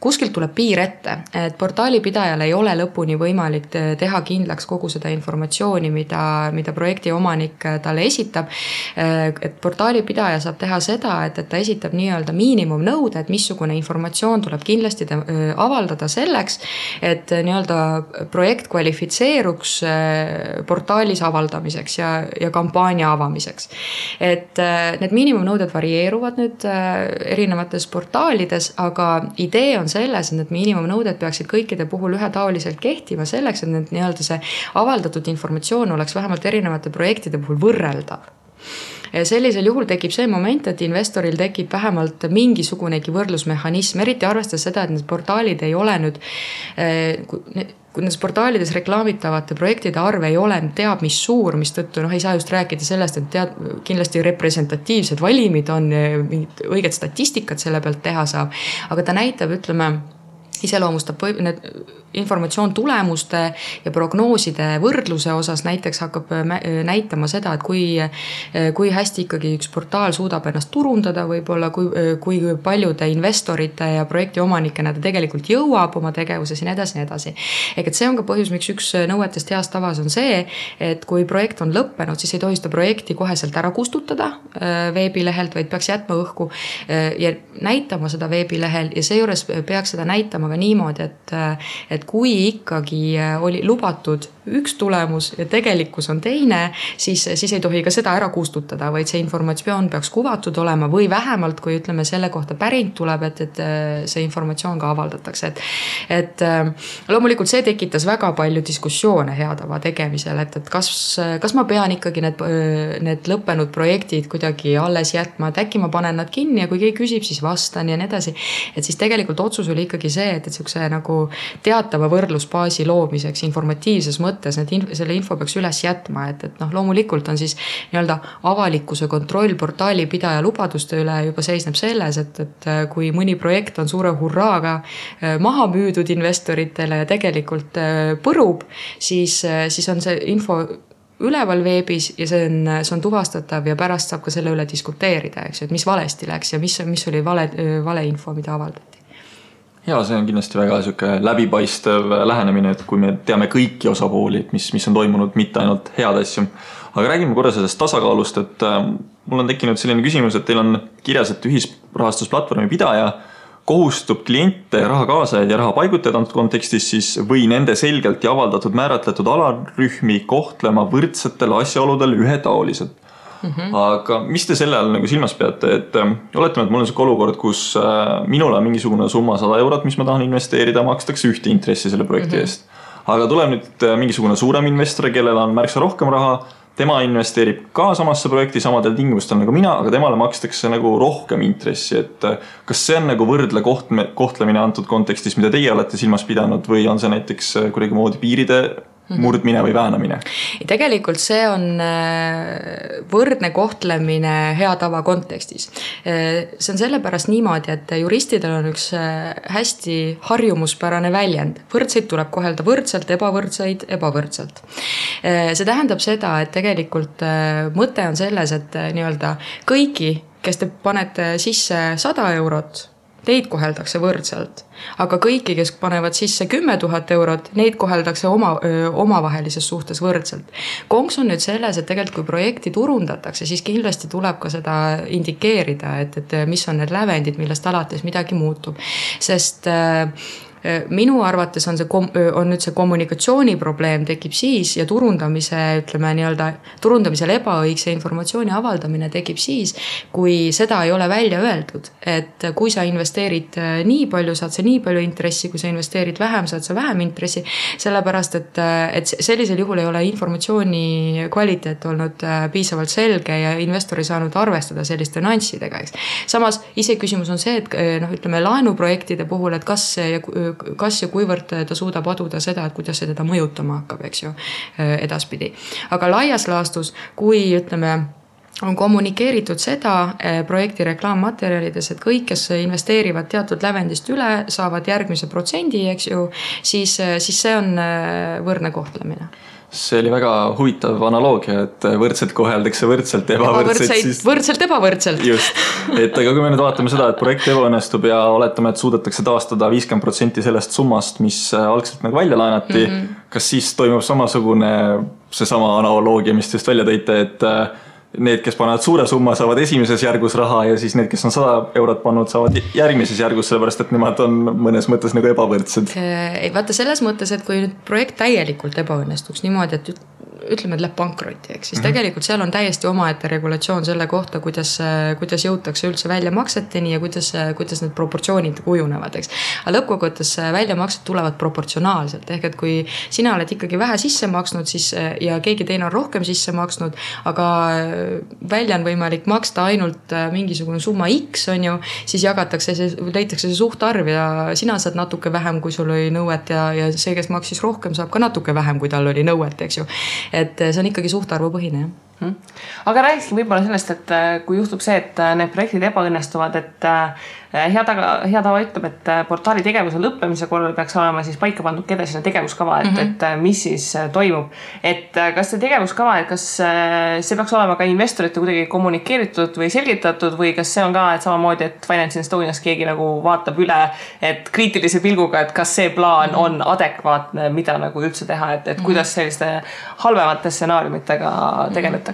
kuskilt tuleb piir ette, et portaalipidajal ei ole lõpuni võimalik teha kindlaks kogu seda informatsiooni, mida projekti omanik talle esitab. Et portaalipidaja saab teha seda, et ta esitab nii-öelda miinimumnõude, et missugune informatsioon tuleb kindlasti avaldada selleks, et nii-öelda projekt kvalifitseeruks portaali avaldamiseks ja kampaania avamiseks. Et need miinimumnõuded varieeruvad nüüd erinevates portaalides, aga idee on selles, et need miinimumnõuded peaksid kõikide puhul ühetaoliselt kehtima selleks, et need nii-öelda see avaldatud informatsioon oleks vähemalt erinevate projektide puhul võrreldav. Ja sellisel juhul tekib see moment, et investoril tekib vähemalt mingisugunegi võrdlusmehhanism, eriti arvestades seda, et need portaalid ei ole nüüd, kui nendes portaalides reklaamitavate projektide arv ei ole teab mis suur, mis tõttu ei saa just rääkida sellest, et kindlasti representatiivsed valimid on, mingid õiged statistikat selle pealt teha saab, aga ta näitab, ütleme, iseloomustab need informatsioon tulemuste ja prognooside võrdluse osas näiteks hakkab näitama seda, et kui hästi ikkagi üks portaal suudab ennast turundada võib-olla, kui paljude investorite ja projekti omanikena ta tegelikult jõuab oma tegevuses ja nii edasi. Et see on ka põhjus, miks üks nõuetest heast tavas on see, et kui projekt on lõppenud, siis ei tohi seda projekti koheselt ära kustutada veebilehelt, vaid peaks jätma õhku ja näitama seda veebilehel ja seejuures peaks seda näitama ka niimoodi, et kui ikkagi oli lubatud üks tulemus ja tegelikkus on teine, siis ei tohi ka seda ära kustutada, vaid see informatsioon peaks kuvatud olema või vähemalt, kui ütleme selle kohta päring tuleb, et see informatsioon ka avaldatakse. Et loomulikult see tekitas väga palju diskussioone hea tava tegemisel, et kas ma pean ikkagi need lõppenud projektid kuidagi alles jätma, et äkki ma panen nad kinni ja kui keegi küsib, siis vastan ja nii edasi. Et siis tegelikult otsus oli ikkagi see, et siukse nagu teatava võrdlusbaasi loomiseks informatiivses mõttes selle info peaks üles jätma, et loomulikult on siis nii-öelda avalikkuse kontroll portaalipidaja lubaduste üle juba seisneb selles, et kui mõni projekt on suure hurraaga maha müüdud investoritele ja tegelikult põrub, siis on see info üleval veebis ja see on tuvastatav ja pärast saab ka selle üle diskuteerida, eks ju, et mis valesti läks ja mis oli vale info, mida avaldati. Ja see on kindlasti väga läbipaistev lähenemine, et kui me teame kõiki osapooli, et mis on toimunud, mitte ainult head asju. Aga räägime korra sellest tasakaalust, et mul on tekkinud selline küsimus, et teil on kirjas, et ühisrahastusplatvormi pidaja kohustub kliente, raha kaasajaid ja raha paigutajaid antud kontekstis siis või nende selgelt ja avaldatud määratletud alarühmi kohtlema võrdsetel asjaoludel ühetaoliselt. Aga mis te selle all silmas peate, et oletame, et mul on see olukord, kus minul on mingisugune summa 100 eurot, mis ma tahan investeerida, makstakse ühte intressi selle projekti eest. Aga tuleb nüüd mingisugune suurem investor, kellel on märksa rohkem raha, tema investeerib ka samasse projekti samadel tingimustel nagu mina, aga temale makstakse rohkem intressi, et kas see on võrdle kohtlemine antud kontekstis, mida teie olete silmas pidanud või on see näiteks kuidagi moodi piiride murdmine või väänamine? Tegelikult see on võrdne kohtlemine hea tava kontekstis. See on sellepärast niimoodi, et juristidel on üks hästi harjumuspärane väljend. Võrdseid tuleb kohelda võrdselt, ebavõrdseid ebavõrdselt. See tähendab seda, et tegelikult mõte on selles, et nii-öelda kõiki, kes te panete sisse 100 eurot, teid koheldakse võrdselt, aga kõiki, kes panevad sisse 10 000 eurot, neid koheldakse omavahelises suhtes võrdselt. Konks on nüüd selles, et tegelikult kui projekti turundatakse, siis kindlasti tuleb ka seda indikeerida, et mis on need lävendid, millest alates midagi muutub. Sest minu arvates on nüüd see kommunikatsiooni probleem tekib siis ja turundamisel ebaõigse informatsiooni avaldamine tekib siis, kui seda ei ole välja öeldud, et kui sa investeerid nii palju, saad sa nii palju intressi, kui sa investeerid vähem, saad sa vähem intressi, sellepärast, et sellisel juhul ei ole informatsiooni kvaliteet olnud piisavalt selge ja investor ei saanud arvestada selliste nüanssidega, eks. Samas ise küsimus on see, et laenuprojektide puhul, et kas ja kuivõrd ta suudab aduda seda, et kuidas see teda mõjutama hakkab, eks ju, edaspidi. Aga laias laastus, kui on kommunikeeritud seda projekti reklaammaterjalides, et kõik, kes investeerivad teatud lävendist üle, saavad järgmise protsendi, eks ju, siis see on võrdne kohtlemine. See oli väga huvitav analoogia, et võrdselt koheldakse võrdselt, võrdselt ebavõrdselt. Just, et aga kui me nüüd vaatame seda, et projekt ebaõnnestub ja oletame, et suudetakse taastada 50% sellest summast, mis algselt nagu välja laenati, kas siis toimub samasugune seesama analoogia, mis te just välja tõite, et need, kes panevad suure summa, saavad esimeses järgus raha ja siis need, kes on 100 eurot pannud, saavad järgmises järgus, sellepärast et nemad on mõnes mõttes nagu ebavõrdsed. Vaata selles mõttes, et kui nüüd projekt täielikult ebaõnnestuks niimoodi, et ütleme, et läheb pankrotti, eks, siis tegelikult seal on täiesti omaette regulatsioon selle kohta, kuidas jõutakse üldse väljamakseteni ja kuidas need proportsioonid kujunevad, eks. Aga lõppkokkuvõttes väljamaksed tulevad proportsionaalselt, ehk et kui sina oled ikkagi vähe sisse maksnud siis, ja keegi teine on rohkem sisse maksnud, aga välja on võimalik maksta ainult mingisugune summa X, on ju, siis leitakse see suhtarv ja sina saad natuke vähem, kui sul oli nõuet ja see, kes maksis rohkem, saab ka natuke vähem, kui tal oli nõuet, eks ju. Et see on ikkagi suhtarvupõhine, jah. Aga rääkisin võib-olla sellest, et kui juhtub see, et need projektid ebaõnnestuvad, et hea tava ütleb, et portaali tegevuse lõppemise korral peaks olema siis paika pandud edasine tegevuskava, et mis siis toimub. Et kas see tegevuskava, et kas see peaks olema ka investorite kuidagi kommunikeeritud või selgitatud või kas see on ka, et samamoodi, et Finance Estonias keegi nagu vaatab üle, et kriitilise pilguga, et kas see plaan on adekvaatne, mida nagu üldse teha, et kuidas selliste halvemate stsenaariumitega tegeletakse?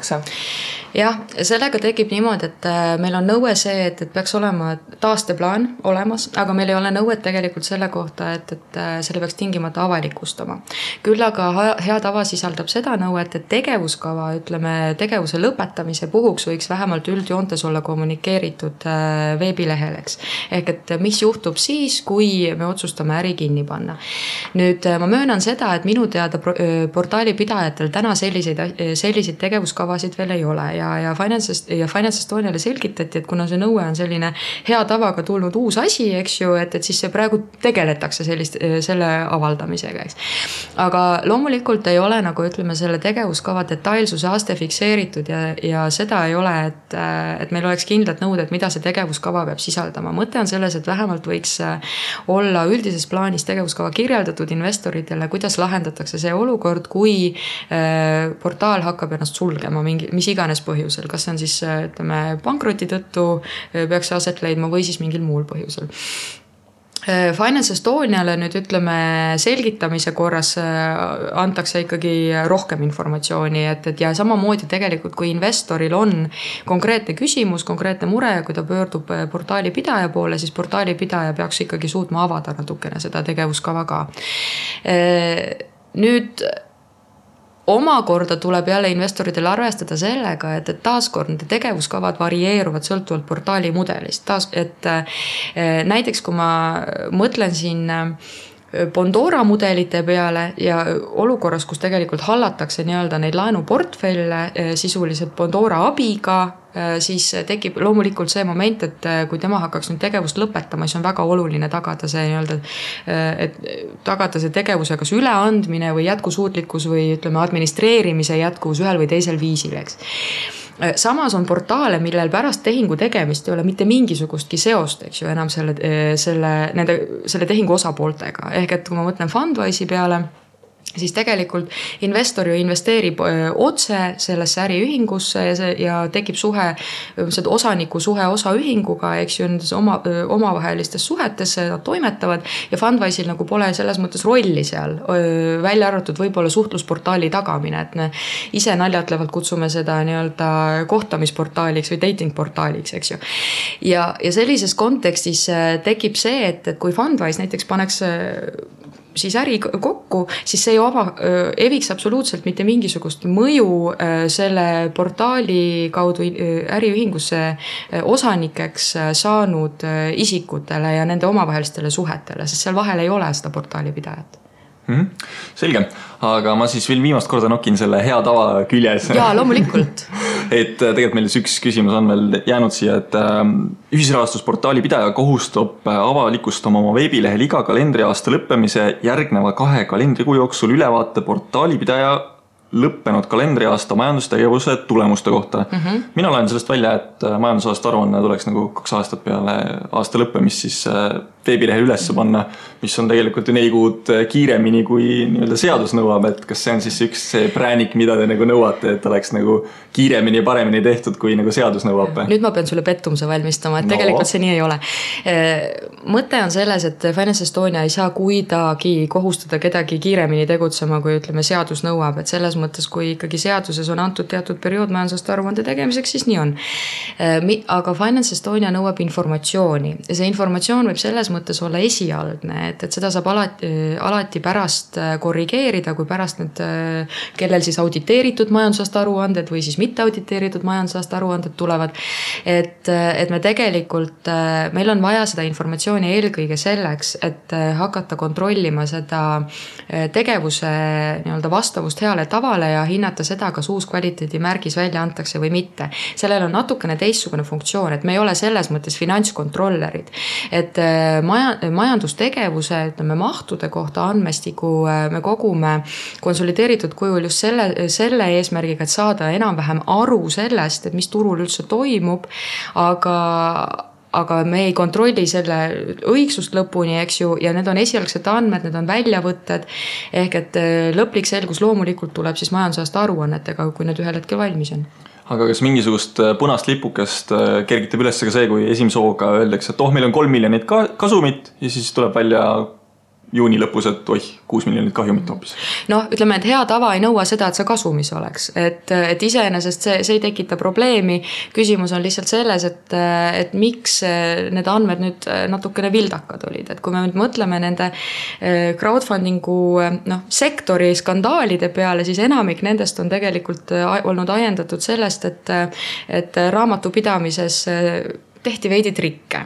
Jah, sellega tekib niimoodi, et meil on nõue see, et peaks olema taasteplaan olemas, aga meil ei ole nõuet tegelikult selle kohta, et selle peaks tingimata avalikustama. Küll aga hea tava sisaldab seda nõuet, et tegevuskava, tegevuse lõpetamise puhuks võiks vähemalt üldjoontes olla kommunikeeritud veebilehel, eks. Ehk et mis juhtub siis, kui me otsustame äri kinni panna. Nüüd ma möönan seda, et minu teada portaali pidajatel täna selliseid tegevuskavasid veel ei ole ja Finance Estoniale selgitati, et kuna see nõue on selline hea tavaga tulnud uus asi, eks ju, et siis see praegu tegeletakse selle avaldamisega, eks. Aga loomulikult ei ole selle tegevuskava detailsuse aste fikseeritud ja seda ei ole, et meil oleks kindlad nõuded, mida see tegevuskava peab sisaldama. Mõte on selles, et vähemalt võiks olla üldises plaanis tegevuskava kirjeldatud investoritele, kuidas lahendatakse see olukord, kui portaal hakkab ennast sulgema mis iganes põhjusel, kas see on siis pankroti tõttu peaks see aset leidma või siis mingil muul põhjusel. Finance Estoniale nüüd selgitamise korras antakse ikkagi rohkem informatsiooni, et ja samamoodi tegelikult, kui investoril on konkreetne küsimus, konkreetne mure, kui ta pöördub portaali pidaja poole, siis portaali pidaja peaks ikkagi suutma avada natukene seda tegevuskava ka. Nüüd omakorda tuleb jälle investoritel arvestada sellega, et taaskord nende tegevuskavad varieeruvad sõltuvalt portaali mudelist. Näiteks kui ma mõtlen siin Bondora mudelite peale ja olukorras, kus tegelikult hallatakse neid laenuportfelle sisuliselt Bondora abiga, siis tekib loomulikult see moment, et kui tema hakkaks nüüd tegevust lõpetama, siis on väga oluline tagada see tegevuse kas üleandmine või jätkusuutlikkus või administreerimise jätkuvus ühel või teisel viisil, eks. Samas on portaale, millel pärast tehingu tegemist ei ole mitte mingisugustki seost, eks ju, enam selle tehingu osapooltega. Ehk et kui ma mõtlen Fundwise'i peale, siis tegelikult investor ju investeerib otse sellesse äriühingusse ja tekib suhe, osaniku suhe osaühinguga, eks ju, nendes omavahelistes suhetes nad toimetavad ja Fundwise'il nagu pole selles mõttes rolli seal, välja arvatud võib-olla suhtlusportaali tagamine, et me ise naljatlevalt kutsume seda nii-öelda kohtamisportaaliks või dating portaaliks, eks ju. Ja sellises kontekstis tekib see, et kui Fundwise näiteks paneks siis äri kokku, siis see eviks absoluutselt mitte mingisugust mõju selle portaali kaudu äriühingusse osanikeks saanud isikutele ja nende omavahelistele suhetele, sest seal vahel ei ole seda portaali pidajat. Selge, aga ma siis veel viimast korda nokin selle hea tava küljes. Jaa, loomulikult. Et tegelikult meil üks küsimus on veel jäänud siia, et ühisrahastusportaali pidaja kohustab avalikustama oma veebilehel iga kalendriaasta lõppemise järgneva 2 kalendrikuu jooksul ülevaate portaali pidaja lõppenud kalendriaasta majandustegevuse tulemuste kohta. Mina olen sellest välja, et majandusaasta aruanne tuleks nagu 2 aastat peale aasta lõppemist siis veebilehel üles panna, mis on tegelikult ju 4 kuud kiiremini kui nii-öelda seadus nõuab, et kas see on siis üks see präänik, mida te nagu nõuate, et oleks nagu kiiremini ja paremini tehtud, kui nagu seadus nõuab? Nüüd ma pean sulle pettumuse valmistama, et tegelikult see nii ei ole. Mõte on selles, et Finance Estonia ei saa kuidagi kohustada kedagi kiiremini tegutsema, kui ütleme seadus nõuab, et selles mõttes, kui ikkagi seaduses on antud teatud periood majandusaasta aruande tegemiseks, siis nii on. Aga Finance Estonia nõuab informatsiooni ja see informatsioon võib selles mõttes olla esialgne, et seda saab alati pärast korrigeerida, kui pärast need, kellel siis auditeeritud majandusaasta aruanded või siis mitte auditeeritud majandusaasta aruanded tulevad. Et me tegelikult, meil on vaja seda informatsiooni eelkõige selleks, et hakata kontrollima seda tegevuse nii-öelda vastavust heale tavale ja hinnata seda, kas uus kvaliteedimärgis välja antakse või mitte. Sellel on natukene teistsugune funktsioon, et me ei ole selles mõttes finantskontrollerid, et majandustegevuse, ütleme, mahtude kohta andmestiku me kogume konsolideeritud kujul just selle eesmärgiga, et saada enam-vähem aru sellest, et mis turul üldse toimub, aga me ei kontrolli selle õigsust lõpuni, eks ju, ja need on esialgsed andmed, need on väljavõtted, ehk et lõplik selgus loomulikult tuleb siis majandusaasta aruannetega, kui need ühel hetkel valmis on. Aga kas mingisugust punast lipukest kergitab üles ka see, kui esimese hooga öeldakse, et meil on 3 miljonit kasumit ja siis tuleb välja juuni lõpus, et 6 miljonit kahjumit hoopis. Ütleme, et hea tava ei nõua seda, et see kasumis oleks. Et iseenesest see ei tekita probleemi. Küsimus on lihtsalt selles, et miks need andmed nüüd natukene vildakad olid. Et kui me nüüd mõtleme nende crowdfundingu sektori skandaalide peale, siis enamik nendest on tegelikult olnud ajendatud sellest, et raamatupidamises tehti veidi trikke.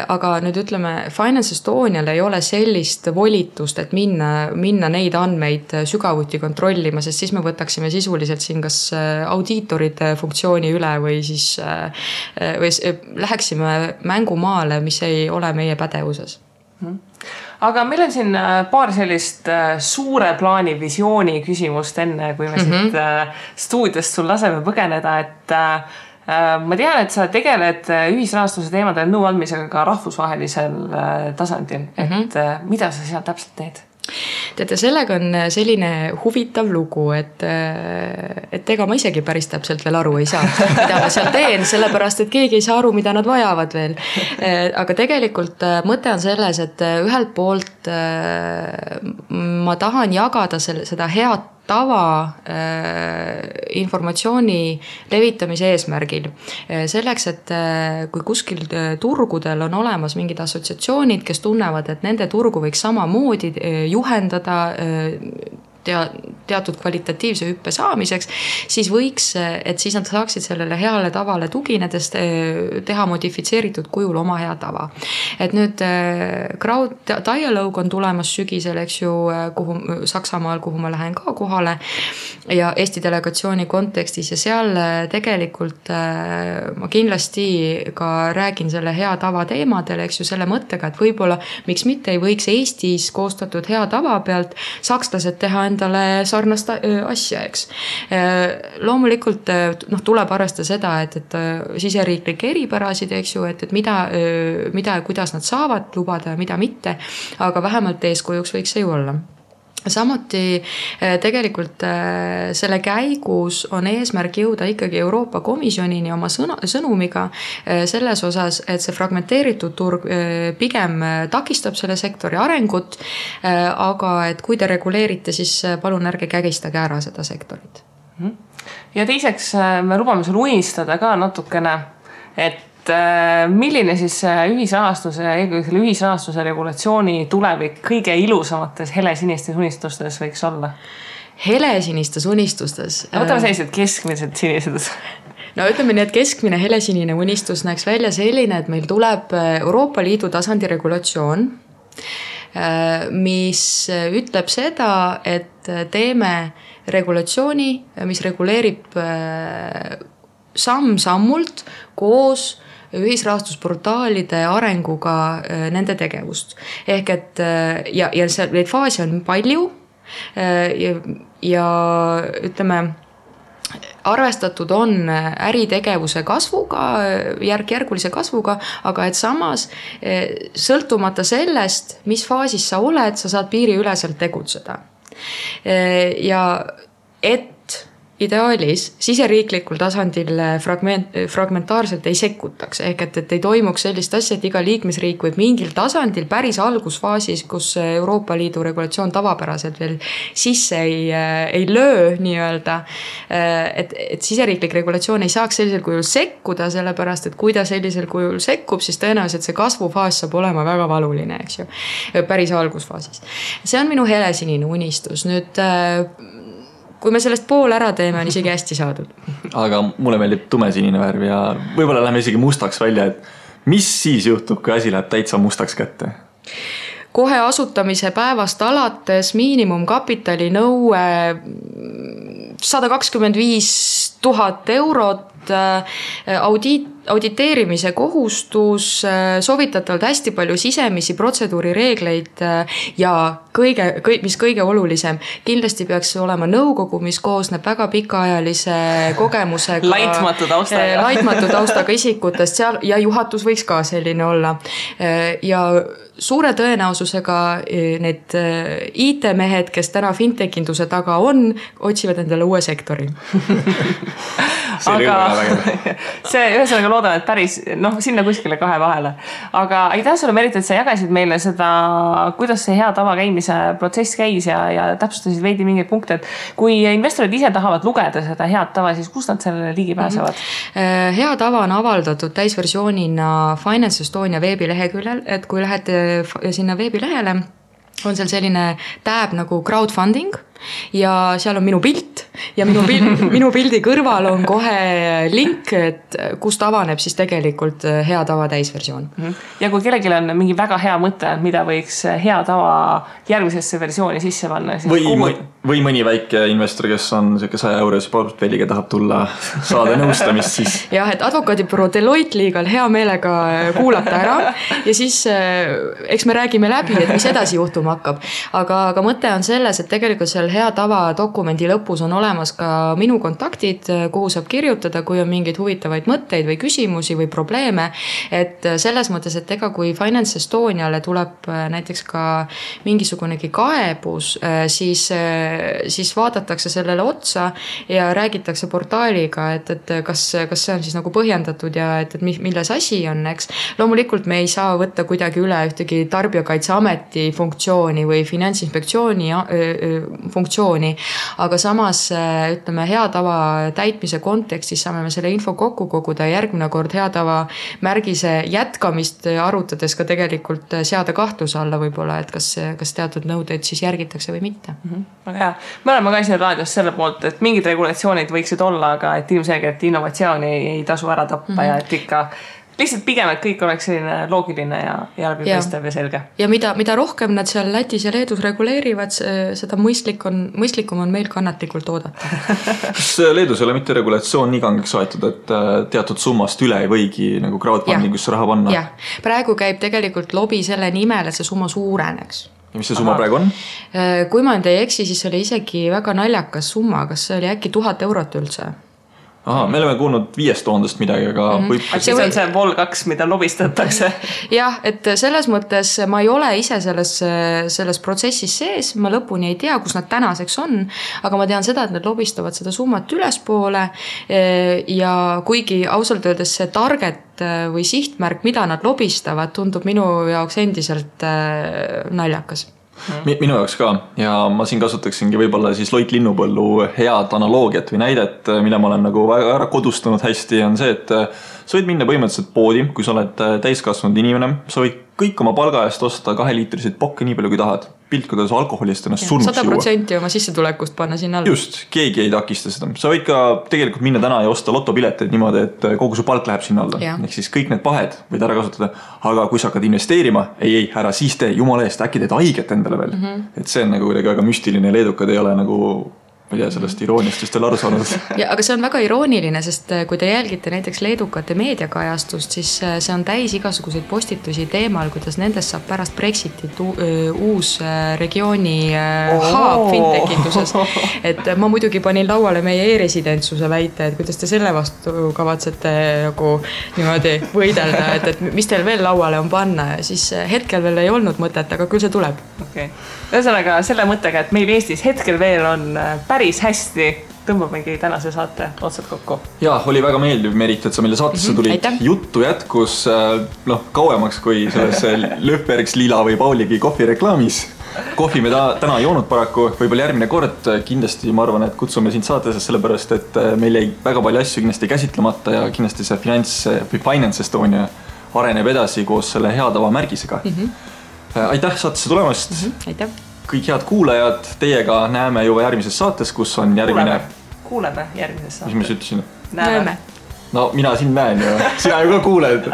Aga nüüd ütleme, Finance Estonial ei ole sellist volitust, et minna neid andmeid sügavuti kontrollima, sest siis me võtaksime sisuliselt siin kas audiitorite funktsiooni üle või siis või läheksime mängumaale, mis ei ole meie pädevuses. Aga meil on siin paar sellist suure plaani visiooni küsimust enne, kui me siit stuudiost sul laseme põgeneda, et ma tean, et sa tegeled ühisrahastuse teemadel nõu andmisega ka rahvusvahelisel tasandil, et mida sa seal täpselt teed? Teate, sellega on selline huvitav lugu, et ega ma isegi päris täpselt veel aru ei saa, mida ma seal teen, sellepärast, et keegi ei saa aru, mida nad vajavad veel. Aga tegelikult mõte on selles, et ühelt poolt ma tahan jagada seda head tava informatsiooni levitamise eesmärgil. Selleks, et kui kuskil turgudel on olemas mingid assotsiatsioonid, kes tunnevad, et nende turgu võiks samamoodi juhendada teatud kvalitatiivse hüppe saamiseks, siis võiks, et siis nad saaksid sellele heale tavale tuginedes teha modifitseeritud kujul oma hea tava. Et nüüd Crowd Dialogue on tulemas sügisel, eks ju, Saksamaal, kuhu ma lähen ka kohale ja Eesti delegatsiooni kontekstis ja seal tegelikult ma kindlasti ka räägin selle hea tava teemadel, eks ju, selle mõttega, et võib-olla miks mitte ei võiks Eestis koostatud hea tava pealt sakslased teha endale sarnast asja, eks. Loomulikult tuleb arvestada seda, et siseriiklikke eripärasid, eks ju, et mida ja kuidas nad saavad lubada ja mida mitte, aga vähemalt eeskujuks võiks see ju olla. samuti tegelikult selle käigus on eesmärk jõuda ikkagi Euroopa Komisjonini oma sõnumiga selles osas, et see fragmenteeritud turg pigem takistab selle sektori arengut, aga et kui te reguleerite, siis palun ärge kägistage ära seda sektorit. Ja teiseks me lubame sul unistada ka natukene, et milline siis ühisrahastuse, eelkõige selle ühisrahastuse regulatsiooni tulevik kõige ilusamates helesinistes unistustes võiks olla? Helesinistes unistustes? Võtame sellised keskmised sinised. No ütleme nii, et keskmine helesinine unistus näeks välja selline, et meil tuleb Euroopa Liidu tasandi regulatsioon, mis ütleb seda, et teeme regulatsiooni, mis reguleerib samm-sammult koos ühisrahastusportaalide arenguga nende tegevust. Ehk et ja neid faase on palju ja ütleme, arvestatud on äritegevuse kasvuga, järk-järgulise kasvuga, aga et samas sõltumata sellest, mis faasis sa oled, sa saad piiriüleselt tegutseda. Ja et ideaalis siseriiklikul tasandil fragmentaarselt ei sekkutaks, ehk et ei toimuks sellist asja, et iga liikmesriik võib mingil tasandil päris algusfaasis, kus Euroopa Liidu regulatsioon tavapäraselt veel sisse ei löö nii-öelda, et siseriiklik regulatsioon ei saaks sellisel kujul sekkuda, sellepärast, et kui ta sellisel kujul sekkub, siis tõenäoliselt see kasvufaas saab olema väga valuline, eks ju, päris algusfaasis. See on minu helesinine unistus. Nüüd kui me sellest pool ära teeme, on isegi hästi saadud. Aga mulle meeldib tumesinine värv ja võib-olla läheme isegi mustaks välja, et mis siis juhtub, kui asi läheb täitsa mustaks kätte? Kohe asutamise päevast alates miinimumkapitali nõue 125 000 eurot, auditeerimise kohustus, soovitatavalt hästi palju sisemisi protseduurireegleid ja mis kõige olulisem, kindlasti peaks olema nõukogu, mis koosneb väga pikaajalise kogemusega, laitmatu taustaga isikutest seal ja juhatus võiks ka selline olla. Ja suure tõenäosusega need IT-mehed, kes täna fintechinduse taga on, otsivad endale uue sektori. Aga see ühesõnaga loodan, et päris sinna kuskile kahe vahele. Aga aitäh sulle, Merit, et sa jagasid meile seda, kuidas see hea tava käimise protsess käis ja täpsustasid veidi mingeid punkte, et kui investorid ise tahavad lugeda seda head tava, siis kus nad sellele ligi pääsevad? Hea tava on avaldatud täisversioonina Finance Estonia veebileheküljel, et kui lähete sinna veebilehele, on seal selline tab nagu crowdfunding ja seal on minu pilt ja minu pildi kõrval on kohe link, et kust avaneb siis tegelikult hea tava täisversioon. Ja kui kellelgi on mingi väga hea mõte, mida võiks hea tava järgmisesse versiooni sisse panna, siis või mõni väike investor, kes on 100 eurose portfelliga, tahab tulla saada nõustamist, siis jah, et advokaadibüroo Deloitte liigal hea meelega kuulata ära ja siis eks me räägime läbi, et mis edasi juhtuma hakkab. Aga mõte on selles, et tegelikult seal hea tava dokumendi lõpus on olemas ka minu kontaktid, kuhu saab kirjutada, kui on mingeid huvitavaid mõtteid või küsimusi või probleeme. Et selles mõttes, et ega kui Finance Estoniale tuleb näiteks ka mingisugunegi kaebus, siis vaadatakse sellele otsa ja räägitakse portaaliga, et kas see on siis nagu põhjendatud ja et milles asi on, eks. Loomulikult me ei saa võtta kuidagi üle ühtegi Tarbijakaitseameti funktsiooni või Finantsinspektsiooni funktsiooni, aga samas ütleme hea tava täitmise kontekstis saame me selle info kokku koguda ja järgmine kord hea tava märgise jätkamist arutades ka tegelikult seada kahtluse alla võib-olla, et kas teatud nõudeid siis järgitakse või mitte. Väga hea. Me oleme ka siin raadios selle poolt, et mingid regulatsioonid võiksid olla, aga et ilmselgelt innovatsiooni ei tasu ära tappa ja et ikka lihtsalt pigem, et kõik oleks selline loogiline ja läbipaistev ja selge. Ja mida rohkem nad seal Lätis ja Leedus reguleerivad, seda mõistlikum on meil kannatlikult oodata. Kas Leedus ei ole mitte regulatsioon nii kangeks aetud, et teatud summast üle ei võigi nagu crowdfundingusse raha panna? Jah, praegu käib tegelikult lobi selle nimel, et see summa suureneks. Ja mis see summa praegu on? Kui ma ei eksi, siis oli isegi väga naljakas summa, kas see oli äkki 1000 eurot üldse? Aha, me oleme kuulnud 5000 midagi, aga võib... Siis on see Vol 2, mida lobistatakse. Jah, et selles mõttes ma ei ole ise selles protsessis sees, ma lõpuni ei tea, kus nad tänaseks on, aga ma tean seda, et nad lobistavad seda summat ülespoole ja kuigi ausalt öeldes see target või sihtmärk, mida nad lobistavad, tundub minu jaoks endiselt naljakas. Minu jaoks ka ja ma siin kasutaksingi võib-olla siis Loit Linnupõllu head analoogiat või näidet, mille ma olen nagu väga ära kodustanud hästi, on see, et sa võid minna põhimõtteliselt poodi, kui sa oled täiskasvanud inimene, sa võid kõik oma palga eest osta 2-liitriseid pokke nii palju kui tahad. Pilt, kuidas alkoholist ennast surnuks 100% oma sissetulekust panna sinna alla. Just, keegi ei takista seda. Sa võid ka tegelikult minna täna ja osta lotopileteid niimoodi, et kogu su palk läheb sinna alla. Ehk siis kõik need pahed võid ära kasutada. Aga kui sa hakkad investeerima, ei, ära siis tee, jumala eest, äkki teed haiget endale veel. Et see on nagu väga müstiline, leedukad ei ole nagu... ma ei tea sellest irooniast just veel aru saanud. Ja, aga see on väga irooniline, sest kui te jälgite näiteks leedukate meediakajastust, siis see on täis igasuguseid postitusi teemal, kuidas nendest saab pärast Brexitit uus regiooni haab fintechituses. Et ma muidugi panin lauale meie e-residentsuse väite, et kuidas te selle vastu kavatsete nagu niimoodi võidelda, et mis teil veel lauale on panna ja siis hetkel veel ei olnud mõtet, aga küll see tuleb. Okay. Ühesõnaga selle mõttega, et meil Eestis hetkel veel on päris hästi, tõmbamegi tänase saate otsad kokku. Jaa, oli väga meeldiv, Merit, et sa meile saatesse tulid. Juttu jätkus kauemaks kui selles Löfbergs, Lila või Pauligi kohvireklaamis. Kohvi me täna joonud paraku, võib-olla järgmine kord kindlasti ma arvan, et kutsume sind saatesse sellepärast, et meil jäi väga palju asju kindlasti käsitlemata ja kindlasti see Finance Estonia areneb edasi koos selle hea tava märgisega. Aitäh saatesse tulemast. Aitäh. Kõik head kuulajad, teiega näeme juba järgmises saates, kus on järgmine... Kuuleme järgmises saates. Mis ma ütlesin? Näeme. No mina siin näen ju, sina ju ka kuuled.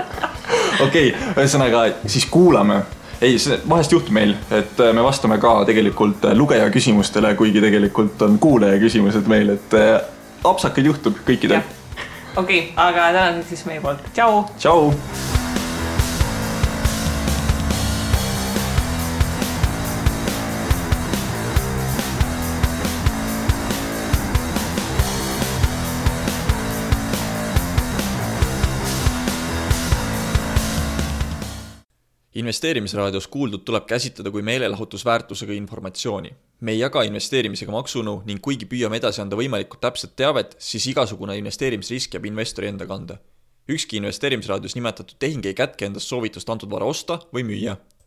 Okei, ühesõnaga siis kuulame. Ei, vahest juhtub meil, et me vastame ka tegelikult lugeja küsimustele, kuigi tegelikult on kuulaja küsimused meil, et apsakad juhtub kõikidel. Okei, aga tänan siis meie poolt. Tšau! Tšau! Investeerimisraadios kuuldud tuleb käsitleda kui meelelahutusväärtusega informatsiooni. Me ei jaga investeerimisega maksunu ning kuigi püüame edasi anda võimalikult täpset teavet, siis igasugune investeerimisrisk jääb investori enda kanda. Ükski investeerimisraadios nimetatud tehing ei kätke endast soovitust antud vara osta või müüa.